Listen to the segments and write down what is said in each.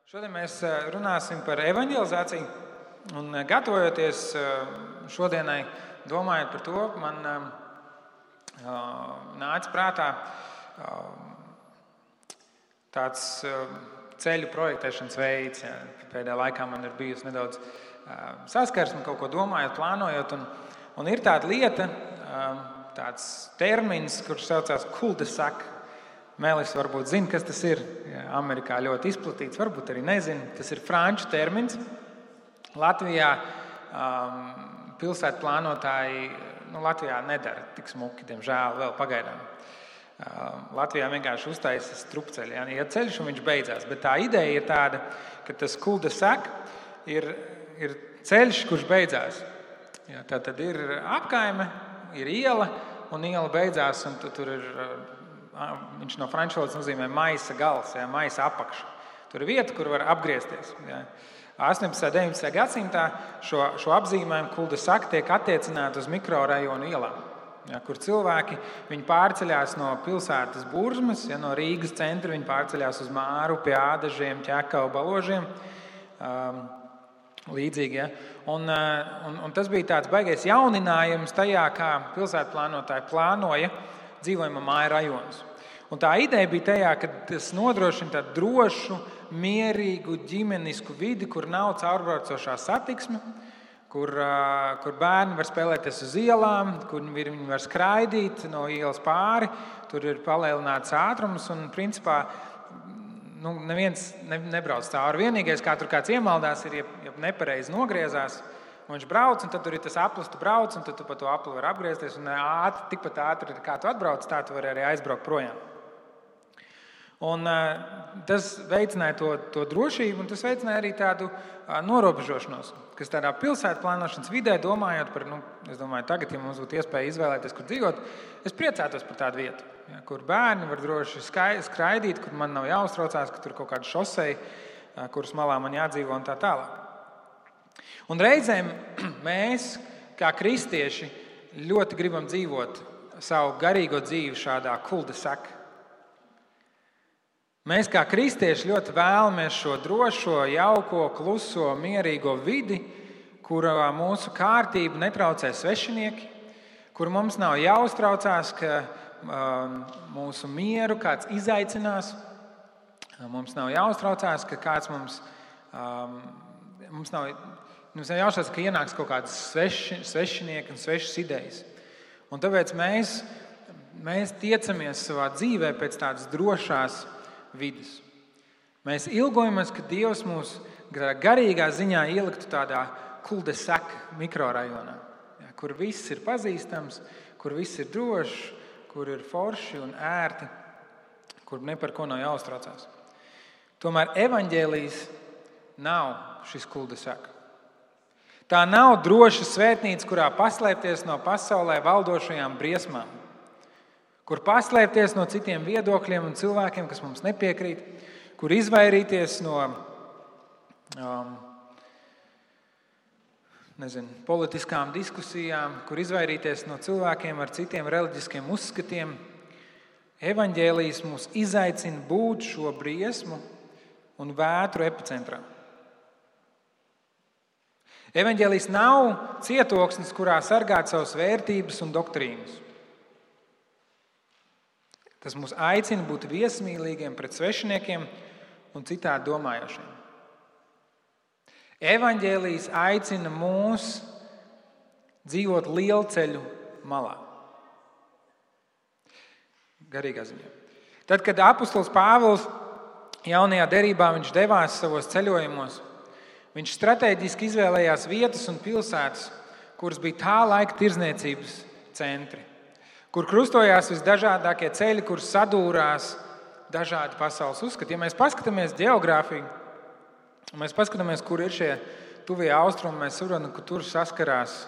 Šodien mēs runāsim par evanģelizāciju, un gatavojoties šodienai, domājot par to, man nāca prātā tāds ceļu projektēšanas veids. Pēdējā laikā man ir bijusi nedaudz saskarsme, kaut ko domājot, plānojot, un ir tāda lieta, tāds termins, kurš saucās cul-de-sac. Mēlis varbūt zina, kas tas ir. Amerikā ļoti izplatīts, varbūt arī nezina. Tas ir franču termins. Latvijā pilsētu plānotāji Latvijā nedara tik smuki, diemžēl, vēl pagaidām. Latvijā vienkārši uztaisa strupceļi. Ja ceļš un viņš beidzās. Bet tā ideja ir tāda, ka tas cul-de-sac ir ceļš, kurš beidzās. Tā tad ir apkaime, ir iela, un iela beidzās, un tur ir... Viņš no franču valodas nozīmē maisa gals, maisa apakša. Tur ir vieta, kur var apgriezties. 18. un 19. gadsimtā šo apzīmējumu cul-de-sac tiek attiecināti uz mikrorajonu ielām, kur cilvēki pārceļās no pilsētas Burzmas, no Rīgas centra viņi pārceļās uz Māru, pie Ādažiem, Ķekavu, Baložiem. Līdzīgi. Un tas bija tāds baigais jauninājums tajā, kā pilsētu plānotāji plānoja dzīvojamo māju rajonus. Un tā ideja bija tajā, ka tas nodrošina tādu drošu, mierīgu, ģimenisku vidi, kur nav caurbraucošā satiksme, kur bērni var spēlēties uz ielām, kur viņi var skraidīt no ielas pāri, tur ir palielināts ātrums un principā neviens nebrauc cauri. Vienīgais, kā tur kāds iemaldās, ir, ja nepareizi nogriezās, un viņš brauc, un tad tur ir tas aplis, tu brauc, un tad tu pa to apli var apgriezties, un tikpat ātri, kā tu atbrauc, tā tu vari arī aizbraukt projām. Un tas veicināja to drošību, un tas veicināja arī tādu norobežošanos, kas tādā pilsētu plānošanas vidē, domājot par, es domāju, tagad, ja mums būtu iespēja izvēlēties, kur dzīvot, es priecātos par tādu vietu, kur bērni var droši skraidīt, kur man nav jāuztraucās, ka tur kaut kāda šoseja, kuras malā man jādzīvo un tā tālāk. Un reizēm mēs, kā kristieši, ļoti gribam dzīvot savu garīgo dzīvi šādā cul-de-sac. Mēs, kā kristieši, ļoti vēlamies šo drošo, jauko, kluso, mierīgo vidi, kurā mūsu kārtību netraucē svešinieki, kur mums nav jāuztraucās, ka mūsu mieru kāds izaicinās, mums nav jāuztraucās, ka kāds mums nav jāuztraucās, ka ienāks kaut kādas svešinieki un svešas idejas. Un tāpēc mēs tiecamies savā dzīvē pēc tādas drošās vidas. Mēs ilgojamies, ka Dievs mūs garīgā ziņā ieliktu tādā cul-de-sac mikrorajonā, kur viss ir pazīstams, kur viss ir drošs, kur ir forši un ērti, kur ne par ko nav jāuztraucās. Tomēr evaņģēlijs nav šis cul-de-sac. Tā nav droša svētnīca, kurā paslēpties no pasaulē valdošajām briesmām, kur paslēpties no citiem viedokļiem un cilvēkiem, kas mums nepiekrīt, kur izvairīties no politiskām diskusijām, kur izvairīties no cilvēkiem ar citiem reliģiskiem uzskatiem. Evaņģēlijs mūs izaicina būt šo briesmu un vētru epicentrā. Evaņģēlijs nav cietoksnis, kurā sargāt savas vērtības un doktrīnas. Tas mūs aicina būt viesmīlīgiem pret svešiniekiem un citādi domājošiem. Evaņģēlijs aicina mūs dzīvot lielceļu malā. Garīgā ziņā. Tad, kad apostols Pāvils jaunajā derībā viņš devās savos ceļojumos, viņš strateģiski izvēlējās vietas un pilsētas, kuras bija tā laika tirdzniecības centri, kur krustojās visdažādākie ceļi, kur sadūrās dažādi pasaules uzskati. Ja mēs paskatāmies ģeogrāfiju, un mēs paskatāmies, kur ir šie tuvie austrumi, mēs saprotam, ka tur saskarās,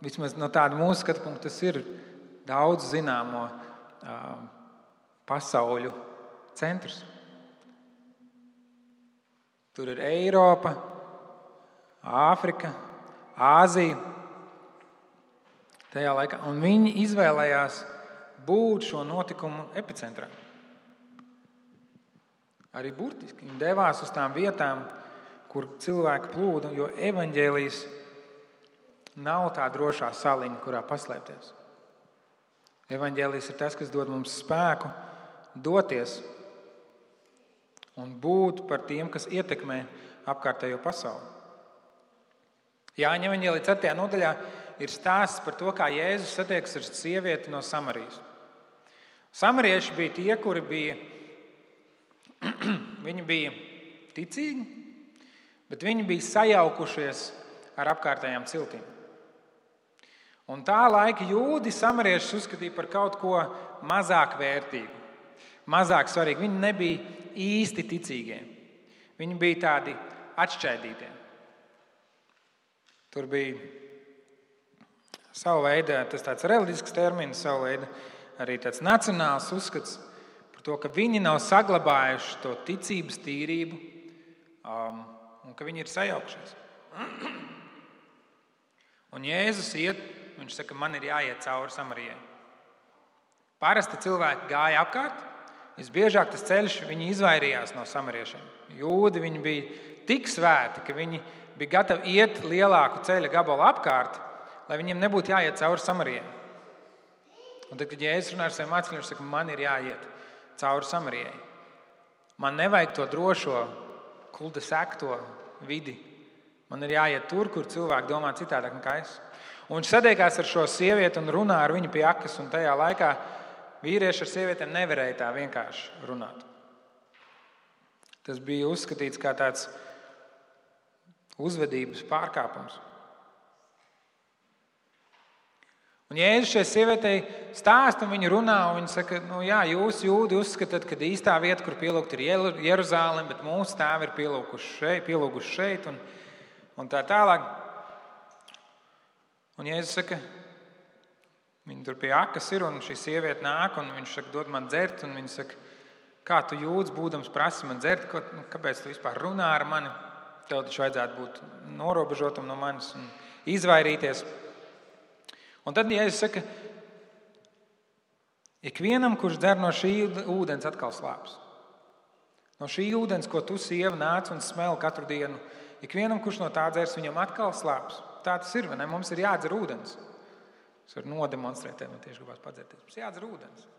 vismaz no tāda mūsu skatu punkta, tas ir daudz zināmo pasauļu centrs. Tur ir Eiropa, Āfrika, Āzija. Tajā laikā, un viņi izvēlējās būt šo notikumu epicentrā. Arī burtiski. Viņi devās uz tām vietām, kur cilvēki plūda, jo evaņģēlijs nav tā drošā saliņa, kurā paslēpties. Evaņģēlijs ir tas, kas dod mums spēku doties un būt par tiem, kas ietekmē apkārtējo pasauli. Jāņa evaņģēlija 4. nodaļā ir stāsts par to, kā Jēzus satiekas ar sievieti no Samarijas. Samarieši bija tie, kuri viņi bija ticīgi, bet viņi bija sajaukušies ar apkārtējām ciltīm. Un tā laika jūdi samariešus uzskatīja par kaut ko mazāk vērtīgu, mazāk svarīgu. Viņi nebija īsti ticīgie. Viņi bija tādi atšķaidītie. Tur bija savu veidu, tas tāds reliģisks termins, savu veidu arī tāds nacionāls uzskats par to, ka viņi nav saglabājuši to ticības tīrību un ka viņi ir sajaukšies. Un Jēzus iet, viņš saka, man ir jāiet cauri Samarijai. Parasti cilvēki gāja apkārt, visbiežāk tas ceļš, viņi izvairījās no samariešiem. Jūdi, viņi bija tik svēti, ka viņi bija gatavi iet lielāku ceļa gabalu apkārt, lai viņiem nebūtu jāiet cauri Samarijai. Un tad, kad Jēzus runā ar saviem mācekļiem, viņš saka, man ir jāiet cauri Samarijai. Man nevajag to drošo, kulta sekto vidi. Man ir jāiet tur, kur cilvēki domā citādāk nekā es. Un viņš satiekās ar šo sievieti un runā ar viņu pie akas, un tajā laikā vīrieši ar sievietēm nevarēja tā vienkārši runāt. Tas bija uzskatīts kā tāds uzvedības pārkāpums. Un Jēzus šai sievietei stāsta, un viņa runā, un viņa saka, jūs jūdi uzskatāt, ka īstā vieta, kur pielūgt, ir Jeruzālem, bet mūsu tēvi ir pielūguši šeit, un tā tālāk. Un Jēzus saka, viņa tur pie akas ir, un šī sieviete nāk, un viņš saka, dod man dzert, un viņa saka, kā tu jūdz, būdams prasi man dzert, kāpēc tu vispār runā ar mani? Tev taču vajadzētu būt norobežotam no manis un izvairīties. Un tad Jēzus saka, ikvienam, kurš dzer no šī ūdens, atkal slāpes. No šī ūdens, ko tu, sieva, nāc un smel katru dienu, ikvienam, kurš no tā dzers, viņam atkal slāpes. Tā tas ir, vai ne? Mums ir jādzer ūdens. Es varu nodemonstrēt, man tieši gribās padzerties. Mums jādzer ūdens.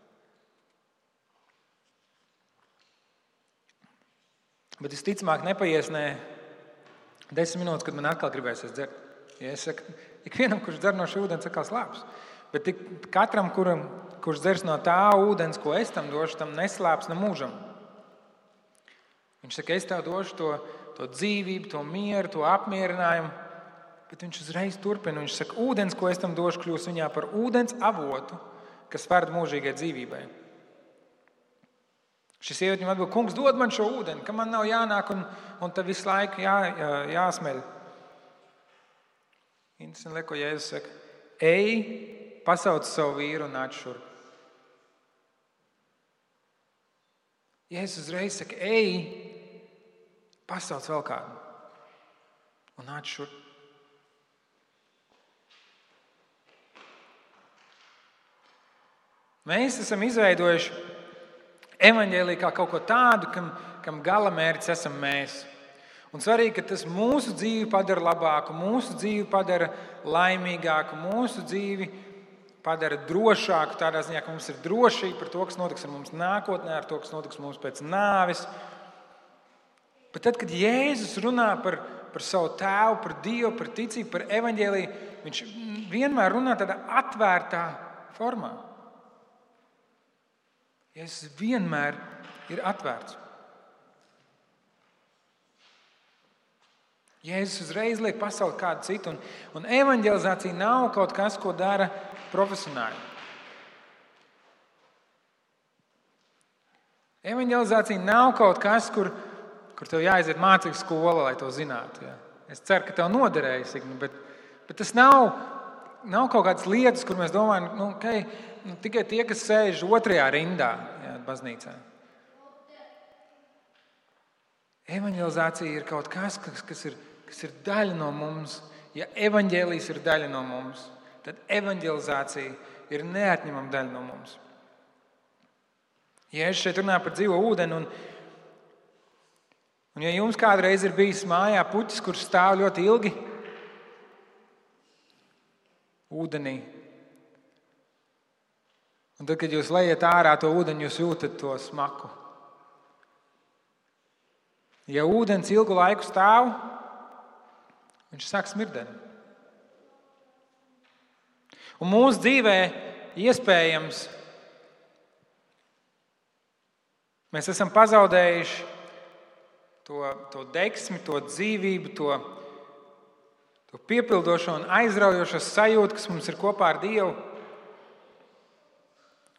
Bet visticamāk nepaies 10 minūtes, kad man atkal gribēsies dzert. Ja es saku, ikvienam, kurš dzer no šī ūdens, atkal slāpes. Bet katram, kurš dzers no tā ūdens, ko es tam došu, tam neslāpes ne mūžam. Viņš saka, es tev došu to dzīvību, to mieru, to apmierinājumu. Bet viņš uzreiz turpina. Viņš saka, ūdens, ko es tam došu, kļūs viņā par ūdens avotu, kas verd mūžīgai dzīvībai. Šis sieviete viņam atbild, kungs, dod man šo ūdeni, ka man nav jānāk un te visu laiku jāsmeļ. Interesanti liek, ko Jēzus saka. Ej, pasauc savu vīru un nāc šurp. Jēzus uzreiz saka, ej, pasauc vēl kādu un nāc šurp. Mēs esam izveidojuši evaņģēliju kā kaut ko tādu, kam galamērķis esam mēs. Un svarīgi, ka tas mūsu dzīvi padara labāku, mūsu dzīvi padara laimīgāku, mūsu dzīvi padara drošāku, tādā ziņā, ka mums ir drošība par to, kas notiks ar mums nākotnē, ar to, kas notiks mums pēc nāves. Bet tad, kad Jēzus runā par savu tēvu, par Dievu, par ticību, par evaņģēliju, viņš vienmēr runā tādā atvērtā formā. Jēzus vienmēr ir atvērts. Jēzus uzreiz liek pasauli kādu citu, un evaņģelizācija nav kaut kas, ko dara profesionāļi. Evaņģelizācija nav kaut kas, kur tev jāaiziet mācību skola, lai to zinātu. Ja? Es ceru, ka tev noderējas, bet tas nav kaut kādas lietas, kur mēs domājam, tikai tie, kas sēž otrajā rindā, baznīcā. Evaņģelizācija ir kaut kas, kas ir daļa no mums. Ja evaņģēlijs ir daļa no mums, tad evaņģelizācija ir neatņemama daļa no mums. Jēzus šeit runā par dzīvo ūdeni, Un ja jums kādreiz ir bijis mājā puķis, kurš stāv ļoti ilgi ūdenī, un tad, kad jūs lejat ārā to ūdeni, jūs jūtat to smaku. Ja ūdens ilgu laiku stāv, viņš sāk smirdēt. Un mūsu dzīvē iespējams mēs esam pazaudējuši to deksmi, to dzīvību, to piepildošo un aizraujošo sajūtu, kas mums ir kopā ar Dievu.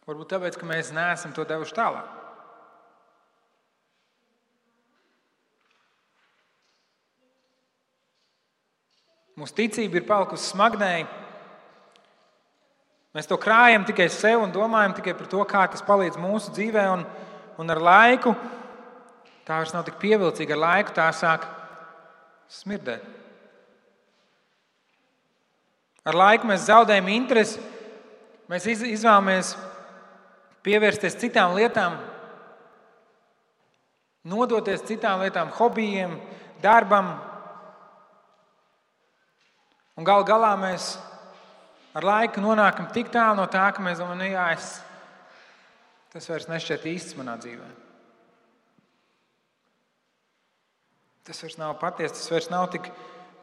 Varbūt tāpēc, ka mēs neesam to devuši tālāk. Mūsu ticība ir palikusi smagnēja. Mēs to krājam tikai sev un domājam tikai par to, kā tas palīdz mūsu dzīvē. Un ar laiku tā vairs nav tik pievilcīga. Ar laiku tā sāk smirdēt. Ar laiku mēs zaudējam interesi. Mēs izvēlamies pievērsties citām lietām, nodoties citām lietām, hobijiem, darbam. Un galu galā mēs ar laiku nonākam tik tālu no tā, ka mēs domājam, tas vairs nešķiet īsts manā dzīvē. Tas vairs nav patiesi, tas vairs nav tik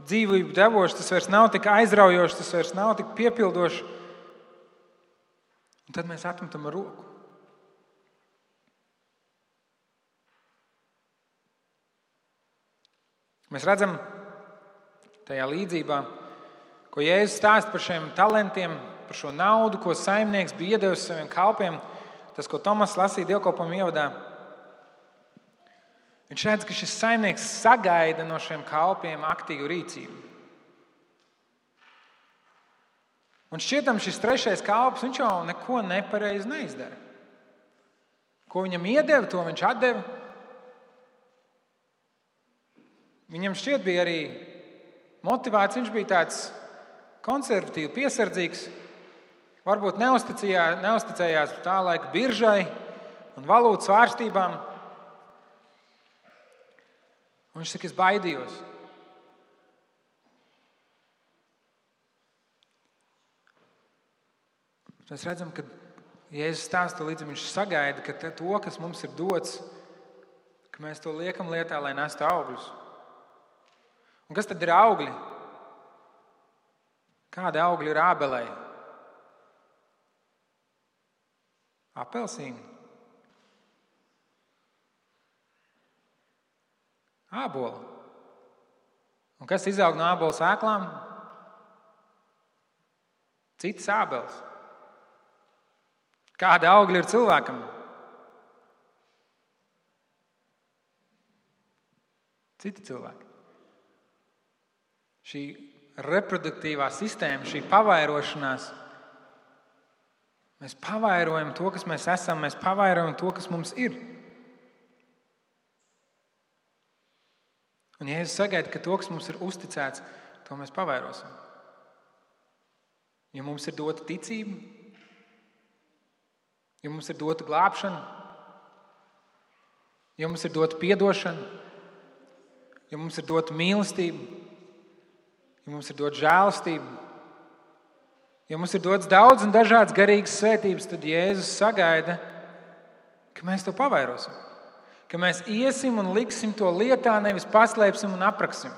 dzīvību devošs, tas vairs nav tik aizraujošs, tas vairs nav tik piepildošs. Un tad mēs atmetam ar roku. Mēs redzam tajā līdzībā, ko Jēzus stāsta par šiem talantiem, par šo naudu, ko saimnieks bija iedevis saviem kalpiem, tas, ko Tomas lasīja dievkalpojuma ievadā. Viņš redz, ka šis saimnieks sagaida no šiem kalpiem aktīvu rīcību. Un šķietam šis trešais kalps, viņš jau neko nepareizi neizdara. Ko viņam iedeva, to viņš atdeva. Viņam šķiet bija arī motivēts, viņš bija tāds konservatīvi, piesardzīgs, varbūt neusticējās tā laika biržai un valūtas svārstībām. Un viņš saka, es baidījos. Mēs redzam, ka Jēzus stāsta līdzi, viņš sagaida, ka to, kas mums ir dots, ka mēs to liekam lietā, lai nestu augļus. Un kas tad ir augļi? Kādi augļi ir ābelei? Apelsīni? Ābola. Un kas izaug no ābola sēklām? Citas ābeles. Kādi augļi ir cilvēkam? Citi cilvēki. Šī reproduktīvā sistēma, šī pavairošanās, mēs pavairojam to, kas mēs esam, mēs pavairojam to, kas mums ir. Un Jēzus sagaida, ka to, kas mums ir uzticēts, to mēs pavairosim. Ja mums ir dota ticība, ja mums ir dota glābšana, ja mums ir dota piedošana, ja mums ir dota mīlestība, ja mums ir dota žēlastība, ja mums ir dots daudz un dažādas garīgas svētības, tad Jēzus sagaida, ka mēs to pavairosim. Ka mēs iesim un liksim to lietā, nevis paslēpsim un apraksim.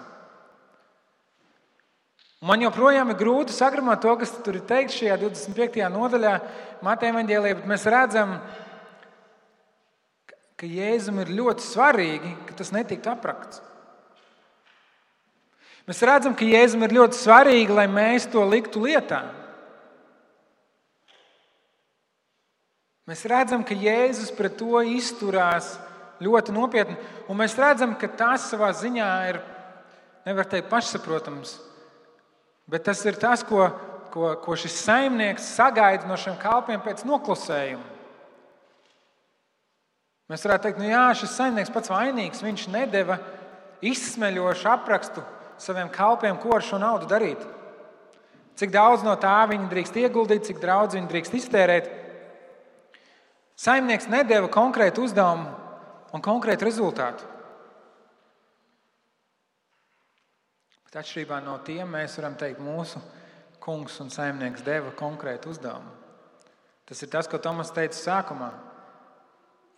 Man joprojām ir grūti sagramot to, kas tur ir teikts šajā 25. nodaļā Mateja evaņģēlijā, bet mēs redzam, ka Jēzum ir ļoti svarīgi, ka tas netiktu aprakts. Mēs redzam, ka Jēzum ir ļoti svarīgi, lai mēs to liktu lietā. Mēs redzam, ka Jēzus pret to izturās ļoti nopietni, un mēs redzam, ka tas savā ziņā ir, nevar teikt, pašsaprotams, bet tas ir tas, ko šis saimnieks sagaida no šiem kalpiem pēc noklusējuma. Mēs varētu teikt, šis saimnieks pats vainīgs, viņš nedeva izsmeļošu aprakstu saviem kalpiem, ko ar šo naudu darīt. Cik daudz no tā viņi drīkst ieguldīt, cik daudz viņi drīkst iztērēt. Saimnieks nedeva konkrētu uzdevumu un konkrētu rezultātu. Bet atšķirībā no tiem mēs varam teikt, mūsu kungs un saimnieks deva konkrētu uzdevumu. Tas ir tas, ko Tomas teica sākumā.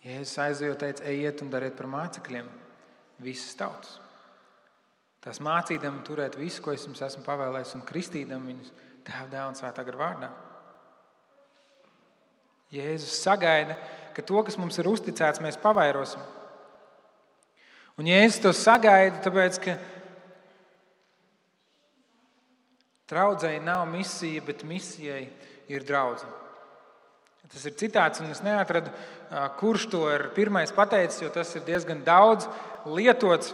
Jēzus aizejot teica, ejiet un dariet par mācekļiem visas tautas. Tās mācīdam turēt visu, ko es jums esmu pavēlējis, un kristīdam viņus Tēva, Dēla un Svētā gara vārdā. Jēzus sagaida, ka to, kas mums ir uzticēts, mēs pavairosim. Un Jēzus to sagaida, tāpēc, ka draudzei nav misija, bet misijai ir draudze. Tas ir citāts, un es neatradu, kurš to ir pirmais pateicis, jo tas ir diezgan daudz lietots.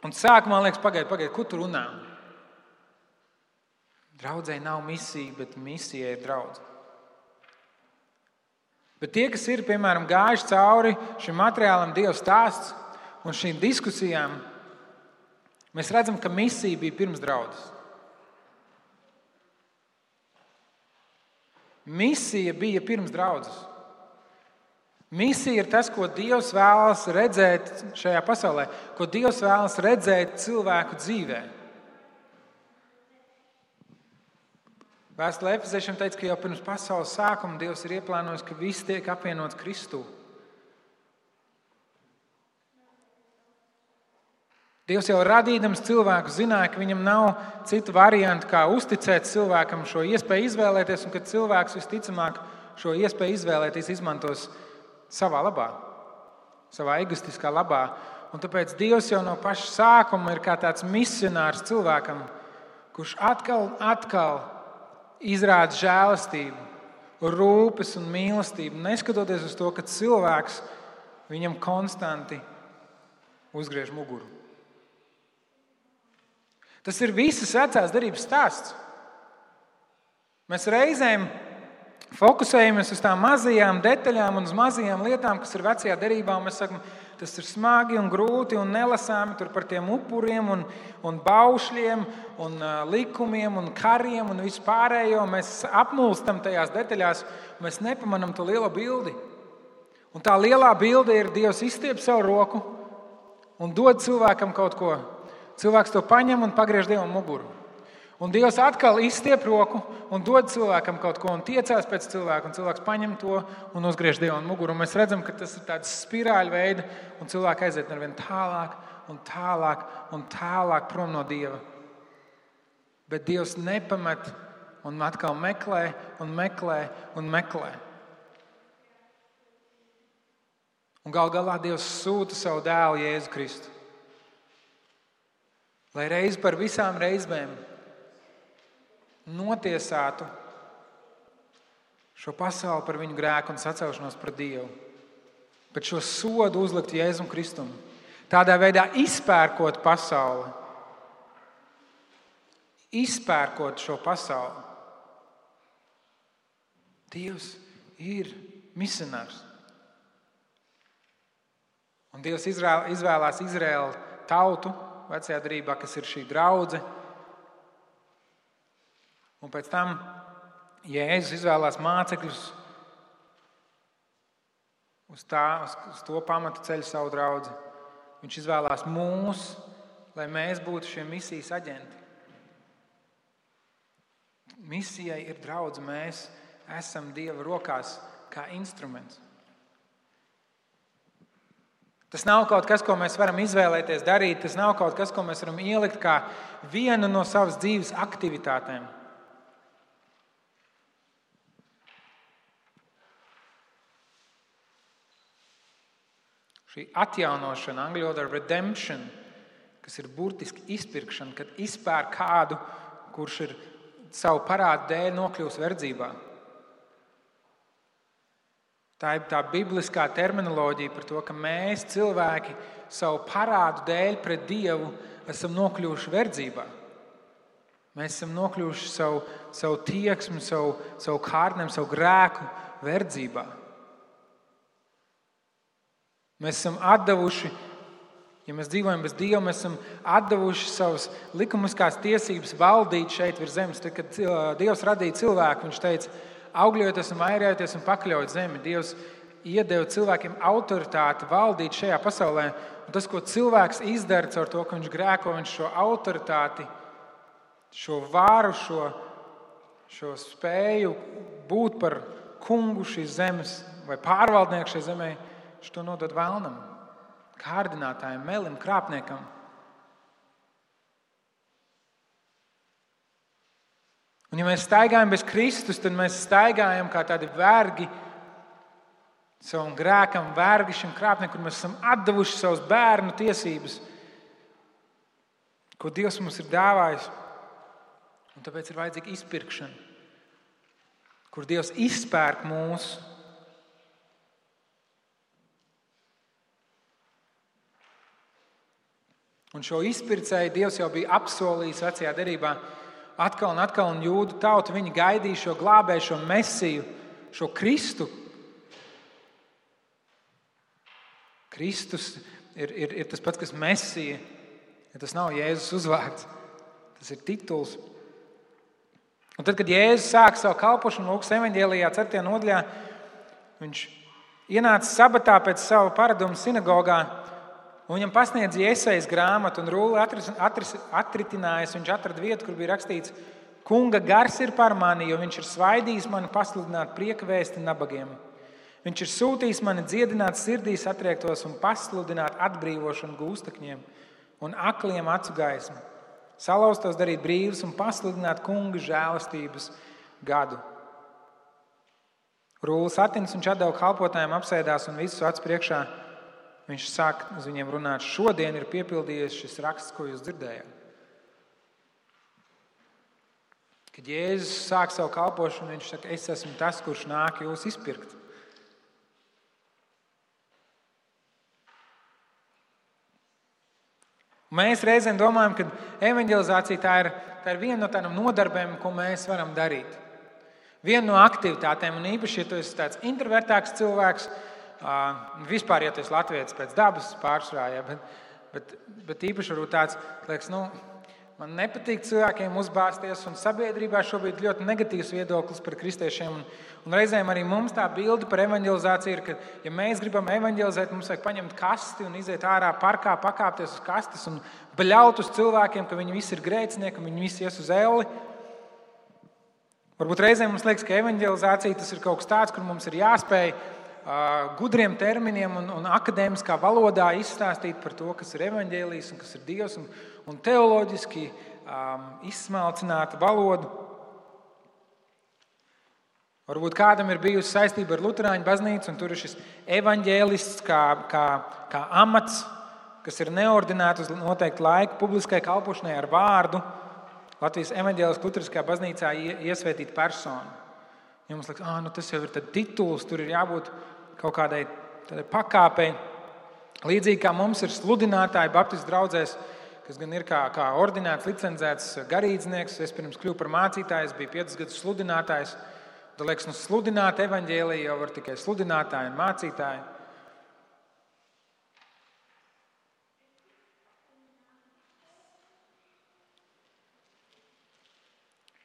Un sākumā liekas, pagaid, ko tu runā? Draudzei nav misija, bet misija ir draudze. Bet tie, kas ir, piemēram, gājuši cauri šim materiālam Dieva stāsts un šīm diskusijām, mēs redzam, ka misija bija pirms draudzes. Misija bija pirms draudzes. Misija ir tas, ko Dievs vēlas redzēt šajā pasaulē, ko Dievs vēlas redzēt cilvēku dzīvē. Vēstulē Efeziešiem teica, ka jau pirms pasaules sākuma Dievs ir ieplānojis, ka viss tiek apvienots Kristū. Dievs jau radīdams cilvēku zināja, ka viņam nav citu variantu, kā uzticēt cilvēkam šo iespēju izvēlēties, un ka cilvēks visticamāk šo iespēju izvēlēties izmantos savā labā, savā egoistiskā labā. Un tāpēc Dievs jau no paša sākuma ir kā tāds misionārs cilvēkam, kurš atkal izrāda žēlastību, rūpes un mīlestību, neskatoties uz to, ka cilvēks viņam konstanti uzgriež muguru. Tas ir visas vecās derības stāsts. Mēs reizēm fokusējamies uz tām mazajām detaļām un uz mazajām lietām, kas ir vecajā derībā, un mēs sakam, tas ir smagi un grūti un nelasāmi tur par tiem upuriem un baušļiem un likumiem un kariem un vispārējo. Mēs apmulstam tajās detaļās, mēs nepamanām to lielo bildi. Un tā lielā bilde ir Dievs izstiep savu roku un dod cilvēkam kaut ko. Cilvēks to paņem un pagriež Dievam muguru. Un Dievs atkal izstiep roku un dod cilvēkam kaut ko un tiecās pēc cilvēka, un cilvēks paņem to un uzgriež Dievam muguru. Un mēs redzam, ka tas ir tāds spirāļu veida, un cilvēki aiziet arvien tālāk un tālāk un tālāk prom no Dieva. Bet Dievs nepamet un atkal meklē un meklē un meklē. Un gal galā Dievs sūta savu dēlu Jēzu Kristu, lai reiz par visām reizēm notiesātu šo pasauli par viņu grēku un sacelšanos pret Dievu. Bet šo sodu uzlikt Jēzum Kristum. Tādā veidā izpērkot pasauli. Izpērkot šo pasauli. Dievs ir misionārs. Un Dievs izvēlās Izraēlu tautu vecajā derībā, kas ir šī draudze. Un pēc tam Jēzus izvēlās mācekļus uz to pamatu ceļu savu draudzi. Viņš izvēlās mūs, lai mēs būtu šie misijas aģenti. Misijai ir draudze, mēs esam Dieva rokās kā instruments. Tas nav kaut kas, ko mēs varam izvēlēties darīt. Tas nav kaut kas, ko mēs varam ielikt kā vienu no savas dzīves aktivitātēm. Šī atjaunošana, angļu valodā redemption, kas ir burtiski izpirkšana, kad izpērk kādu, kurš ir savu parādu dēļ nokļūst verdzībā. Tā ir tā bibliskā terminoloģija par to, ka mēs cilvēki savu parādu dēļ pret Dievu esam nokļuvuši verdzībā. Mēs esam nokļuvuši savu tieksmi, savu kārtnēm, savu grēku verdzībā. Mēs esam atdevuši, ja mēs dzīvojam bez Dieva, mēs esam atdevuši savas likumiskās tiesības valdīt šeit virs zemes. Tad, kad Dievs radīja cilvēku, viņš teica, augļojieties un vairojieties un pakļaujiet zemi. Dievs iedeva cilvēkiem autoritāti valdīt šajā pasaulē. Un tas, ko cilvēks izdara caur to, ka viņš grēko, viņš šo autoritāti, šo vāru, šo spēju būt par kungu šīs zemes vai pārvaldnieku šai zemē, viņš to nodod vēlnam, kārdinātājiem, melim, krāpniekam. Un ja mēs staigājam bez Kristus, tad mēs staigājam kā tādi vergi savam grēkam, vergi šim krāpniekam, kur mēs esam atdevuši savus bērnu tiesības, ko Dievs mums ir dāvājis. Un tāpēc ir vajadzīga izpirkšana, kur Dievs izpērk mūs. Un šo izpircēju Dievs jau bija apsolījis vecajā derībā. Atkal un atkal, un jūdu tauta, viņi gaidīja šo glābēju, šo mesiju, šo Kristu. Kristus ir tas pats, kas mesija. Ja tas nav Jēzus uzvārds, tas ir tituls. Un tad, kad Jēzus sāka savu kalpošanu Lūkas evaņģēlijā 4. nodaļā, viņš ienāca sabatā pēc sava paraduma sinagogā, un viņam pasniedza Jesajas grāmatu, un rulli atritinājis, viņš atrada vietu, kur bija rakstīts: Kunga gars ir par mani, jo viņš ir svaidījis mani pasludināt prieka vēsti nabagiem. Viņš ir sūtījis mani dziedināt sirdīs atriektos un pasludināt atbrīvošanu gūstekņiem un akliem acu gaismu, salauztos darīt brīvus un pasludināt kunga žēlastības gadu. Rullis atins, viņš atdeva kalpotājiem, apsēdās un visus acu priekšā. Viņš sāk uz viņiem runāt: šodien ir piepildījies šis raksts, ko jūs dzirdējāt. Kad Jēzus sāk savu kalpošanu, viņš saka: es esmu tas, kurš nāk jūs izpirkt. Mēs reizēm domājam, ka evanģelizācija tā ir viena no tādām nodarbēm, ko mēs varam darīt. Viena no aktivitātēm, un īpaši, ja tu esi tāds introvertāks cilvēks, vispār, ja tu esi latvietis pēc dabas pārsvarā, bet īpaši varbūt tāds, liekas, man nepatīk cilvēkiem uzbāzties, un sabiedrībā šobrīd ļoti negatīvs viedoklis par kristiešiem. Un reizēm arī mums tā bilde par evanģelizāciju ir, ka, ja mēs gribam evanģelizēt, mums vajag paņemt kasti un iziet ārā parkā, pakāpties uz kastes un bļaut uz cilvēkiem, ka viņi visi ir grēcinieki un viņi visi ies uz elli. Varbūt reizēm mums liekas, ka evanģelizācija tas ir kaut kas tāds, kur mums ir jāspēj gudriem terminiem un akadēmiskā valodā izstāstīt par to, kas ir evaņģēlijs un kas ir Dievs, un teoloģiski izsmalcināta valoda. Varbūt kādam ir bijusi saistība ar Luterāņu baznīcu, un tur ir šis evaņģēlists kā amats, kas ir neordinēts uz noteiktu laiku publiskai kalpošanai ar vārdu. Latvijas evaņģēliskā luteriskajā baznīcā iesvētīta persona. Ja mums liekas, tas jau ir tituls, tur ir jābūt kaut kādai pakāpei. Līdzīgi kā mums ir sludinātāji baptistu draudzēs, kas gan ir kā ordinēts, licencēts garīdznieks. Es pirms kļuvu par mācītāju, es biju 5 gadus sludinātājs. Tad liekas, sludināt evaņģēliju jau var tikai sludinātāji un mācītāji.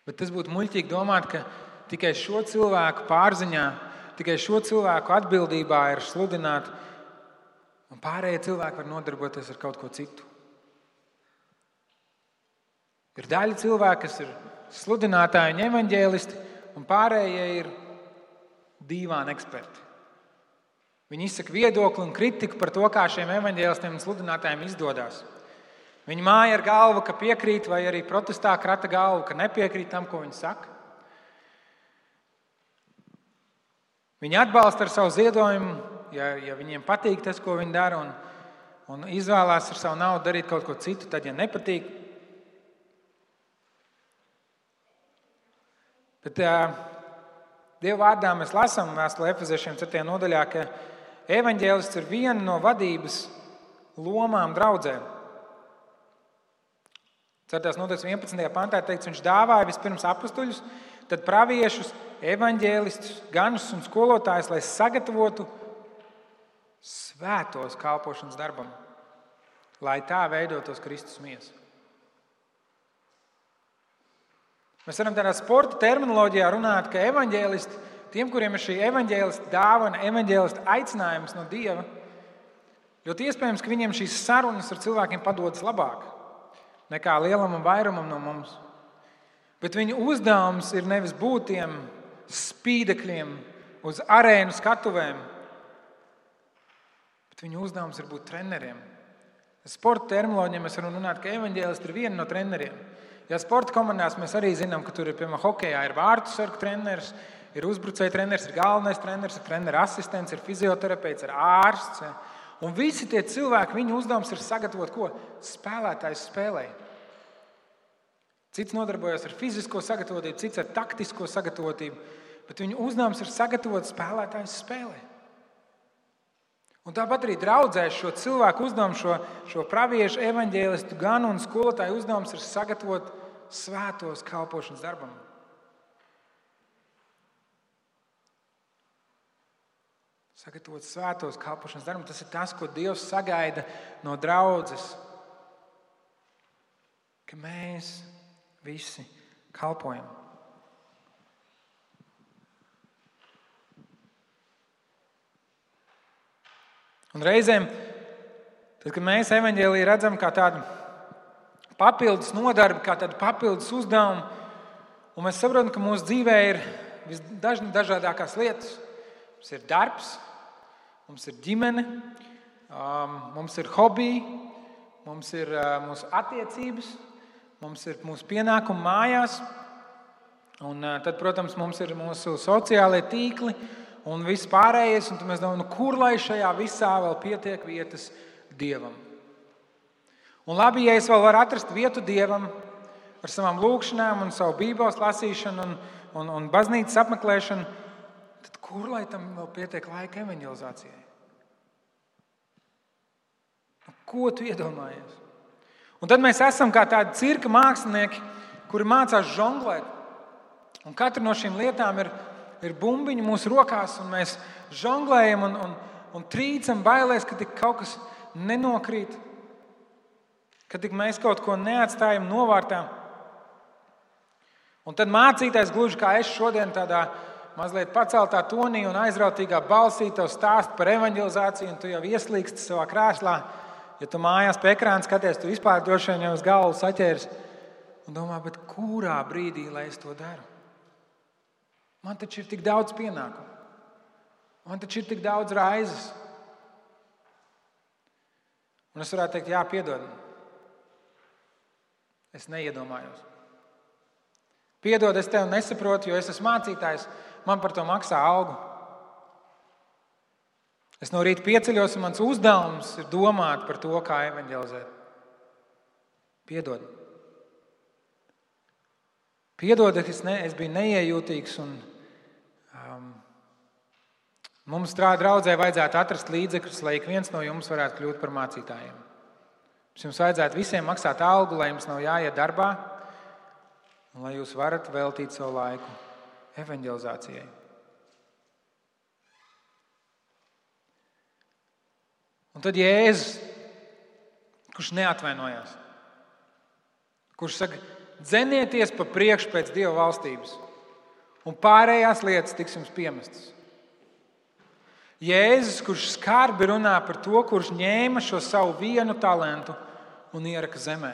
Bet tas būtu muļķīgi domāt, ka tikai šo cilvēku pārziņā, tikai šo cilvēku atbildībā ir sludināt, un pārējie cilvēki var nodarboties ar kaut ko citu. Ir daļa cilvēku, kas ir sludinātāji un evaņģēlisti, un pārējie ir dīvāni eksperti. Viņi izsaka viedokli un kritiku par to, kā šiem evaņģēlistiem un sludinātājiem izdodas. Viņi māja ar galvu, ka piekrīt, vai arī protestā krata galvu, ka nepiekrīt tam, ko viņi saka. Viņi atbalsta ar savu ziedojumu, ja viņiem patīk tas, ko viņi dara, un izvēlās ar savu naudu darīt kaut ko citu, tad, ja nepatīk. Bet Dieva vārdā mēs lasām vēstulē Efeziešiem 4. nodaļā, ka evaņģēlists ir viena no vadības lomām draudzē. 4. nodaļas 11. pantā teikts, viņš dāvāja vispirms apostuļus, tad praviešus, evaņģēlistus, ganus un skolotājus, lai sagatavotu svētos kalpošanas darbam, lai tā veidotos Kristus miesa. Mēs varam tādā sporta terminoloģijā runāt, ka evaņģēlisti tiem, kuriem ir šī evaņģēlista dāvana, evaņģēlista aicinājums no Dieva, ļoti iespējams, ka viņiem šīs sarunas ar cilvēkiem padodas labāk nekā lielam un vairumam no mums. Bet viņu uzdevums ir nevis būt tiem spīdekļiem uz arēnu skatuvēm, bet viņu uzdevums ir būt treneriem. Sporta terminoloģijā mēs varam runāt, ka evaņģēlisti ir viena no treneriem. Ja sporta komandās mēs arī zinām, ka tur ir, piemēram, hokejā ir vārtu sargu treneris, ir uzbrucēja treneris, ir galvenais treneris, ir trenera asistents, ir fizioterapeits, ir ārsts. Un visi tie cilvēki, viņu uzdevums ir sagatavot ko? Spēlētājs spēlē. Cits nodarbojas ar fizisko sagatavotību, cits ar taktisko sagatavotību, bet viņu uzdevums ir sagatavot spēlētājs spēlē. Un tāpat arī draudzē šo cilvēku uzdevumu, šo praviešu, evaņģēlistu ganu un skolotāju uzdevums ir sagatavot svētos kalpošanas darbam. Sagatavot svētos kalpošanas darbam, tas ir tas, ko Dievs sagaida no draudzes. Ka mēs visi kalpojam. Un reizēm, tad, kad mēs evaņģēliju redzam kā tādu papildus nodarbi, kā tādu papildus uzdevumu, un mēs saprotam, ka mūsu dzīvē ir visdažādākās lietas. Mums ir darbs, mums ir ģimene, mums ir hobiji, mums ir mūsu attiecības, mums ir mūsu pienākumi mājās, un tad, protams, mums ir mūsu sociālie tīkli, un viss pārējais, un tad mēs domājam, kur lai šajā visā vēl pietiek vietas Dievam. Un labi, ja es vēl varu atrast vietu Dievam ar savām lūkšanām un savu Bībeles lasīšanu un baznīcas apmeklēšanu, tad kur lai tam vēl pietiek laika evaņģelizācijai? Ko tu iedomājies? Un tad mēs esam kā tādi cirka mākslinieki, kuri mācās žonglēt. Un katra no šīm lietām ir bumbiņi mūsu rokās, un mēs žonglējam un trīcam bailēs, ka tik kaut kas nenokrīt, ka tik mēs kaut ko neatstājam novārtā. Un tad mācītājs, gluži kā es šodien tādā mazliet paceltā tonī un aizrautīgā balsī tev stāst par evaņģelizāciju, un tu jau ieslīgsti savā krēslā. Ja tu mājās pie ekrāna skaties, tu vispār droši vien jau uz galvu saķēries un domā, bet kurā brīdī, lai es to daru? Man taču ir tik daudz pienākumu. Man taču ir tik daudz raizes. Un es varētu teikt, jā, piedod. Es neiedomājos. Piedod, es tevi nesaprotu, jo es esmu mācītājs. Man par to maksā algu. Es no rīta pieceļos, un mans uzdevums ir domāt par to, kā evaņģelizēt. Piedod. Piedod, es biju neiejūtīgs, un mums draudzē vajadzētu atrast līdzekļus, lai ik viens no jums varētu kļūt par mācītājiem. Jums vajadzētu visiem maksāt algu, lai jums nav jāiet darbā, un lai jūs varat veltīt savu laiku evaņģelizācijai. Un tad Jēzus, kurš neatvainojās, kurš saka, dzenieties pa priekšu pēc Dieva valstības, un pārējās lietas tiks jums piemestas. Jēzus, kurš skarbi runā par to, kurš ņēma šo savu vienu talantu un ieraka zemē.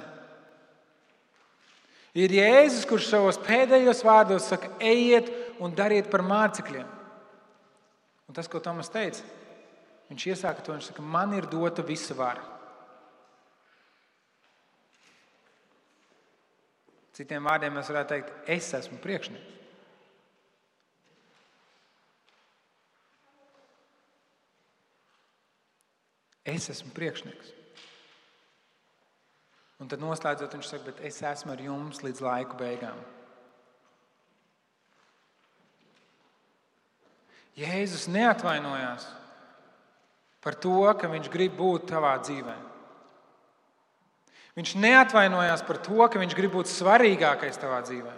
Ir Jēzus, kurš savos pēdējos vārdos saka, ejiet un dariet par mācekļiem. Un tas, ko Tomas teica, viņš iesāka to, viņš saka, man ir dota visa vara. Citiem vārdiem mēs varētu teikt, es esmu priekšnieks. Es esmu priekšnieks. Un tad noslēdzot, viņš saka, bet es esmu ar jums līdz laiku beigām. Jēzus neatvainojās par to, ka viņš grib būt tavā dzīvē. Viņš neatvainojās par to, ka viņš grib būt svarīgākais tavā dzīvē.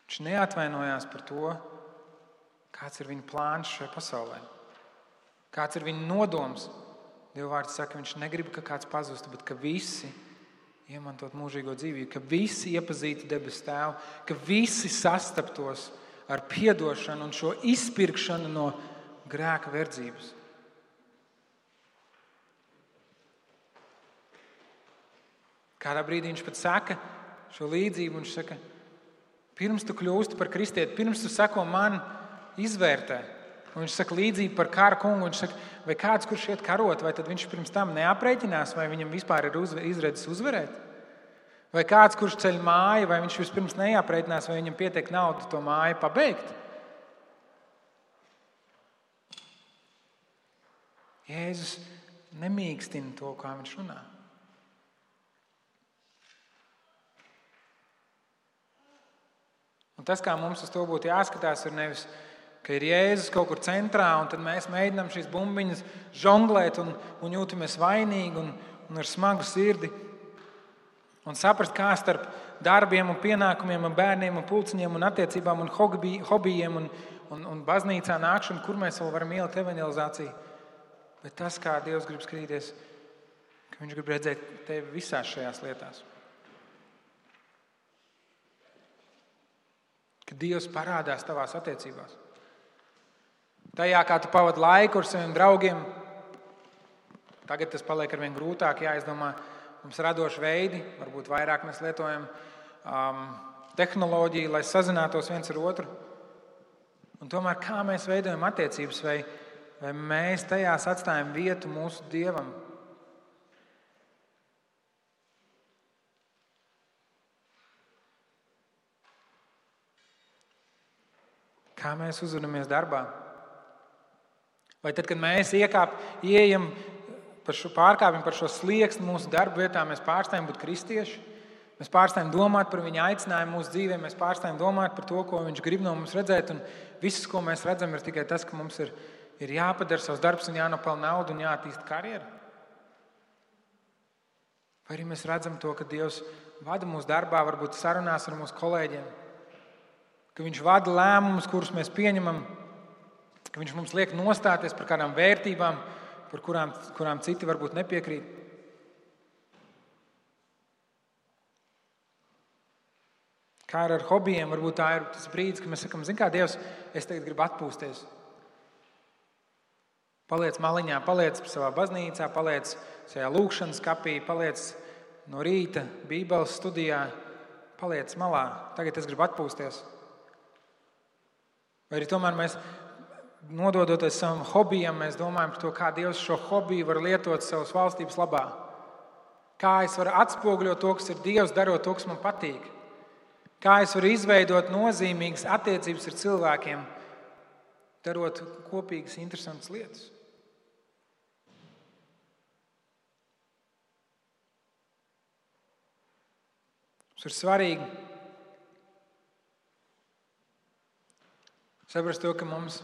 Viņš neatvainojās par to, kāds ir viņa plāns šajā pasaulē. Kāds ir viņa nodoms. Dieva vārds saka, viņš negrib, ka kāds pazustu, bet ka visi iemantot mūžīgo dzīvību, ka visi iepazītu debesu Tēvu, ka visi sastaptos ar piedošanu un šo izpirkšanu no grēka verdzības. Kādā brīdī viņš pat saka šo līdzību, viņš saka, pirms tu kļūsti par kristieti, pirms tu seko man, izvērtē. Un viņš saka līdzību par kara kungu, viņš saka, vai kāds, kurš iet karot, vai tad viņš pirms tam neaprēķinās, vai viņam vispār ir izredzes uzvarēt? Vai kāds, kurš ceļ māju, vai viņš vispirms neaprēķinās, vai viņam pietiek naudu to māju pabeigt? Jēzus nemīkstina to, kā viņš runā. Un tas, kā mums uz to būtu jāskatās, ir nevis, ka ir Jēzus kaut kur centrā, un tad mēs mēģinām šīs bumbiņas žonglēt un jūtamies vainīgi un ar smagu sirdi. Un saprast, kā starp darbiem un pienākumiem un bērniem un pulciņiem un attiecībām un hobijiem un baznīcā nākšanu, kur mēs vēl varam ielikt evanģelizāciju. Bet tas, kā Dievs grib skatīties, ka viņš grib redzēt tevi visās šajās lietās. Ka Dievs parādās tavās attiecībās. Tajā, kā tu pavadi laiku ar saviem draugiem, tagad tas paliek arvien grūtāk jāizdomā. Mums radoši veidi, varbūt vairāk mēs lietojam tehnoloģiju, lai sazinātos viens ar otru. Un tomēr kā mēs veidojam attiecības, vai mēs tajās atstājam vietu mūsu Dievam? Kā mēs uzvedamies darbā? Vai tad, kad mēs ieejam pārkāpjam par šo slieksni mūsu darba vietā, mēs pārstājam būt kristieši, mēs pārstājam domāt par viņa aicinājumu mūsu dzīvē, mēs pārstājam domāt par to, ko viņš grib no mums redzēt, un viss, ko mēs redzam, ir tikai tas, ka mums ir jāpadara savs darbs un jānopelna naudu un jāattīsta karjeru? Vai arī mēs redzam to, ka Dievs vada mūsu darbā, varbūt sarunās ar mūsu kolēģiem, ka viņš vada lēmumus, kurus mēs pieņemam, ka viņš mums liek nostāties par kādām vērtībām, par kurām citi varbūt nepiekrīt. Kā ar hobijiem, varbūt tā ir tas brīdis, kad mēs sakam, zini kā, Dievs, es tagad gribu atpūsties. Paliec maliņā, paliec savā baznīcā, paliec šajā lūkšanas kapī, paliec no rīta Bībeles studijā, paliec malā. Tagad es gribu atpūsties. Vai arī tomēr mēs, nododoties savam hobijam, mēs domājam par to, kā Dievs šo hobiju var lietot savas valstības labā. Kā es varu atspoguļot to, kas ir Dievs, darot to, kas man patīk. Kā es varu izveidot nozīmīgas attiecības ar cilvēkiem, darot kopīgas, interesantas lietas. Tas ir svarīgi saprast to, ka mums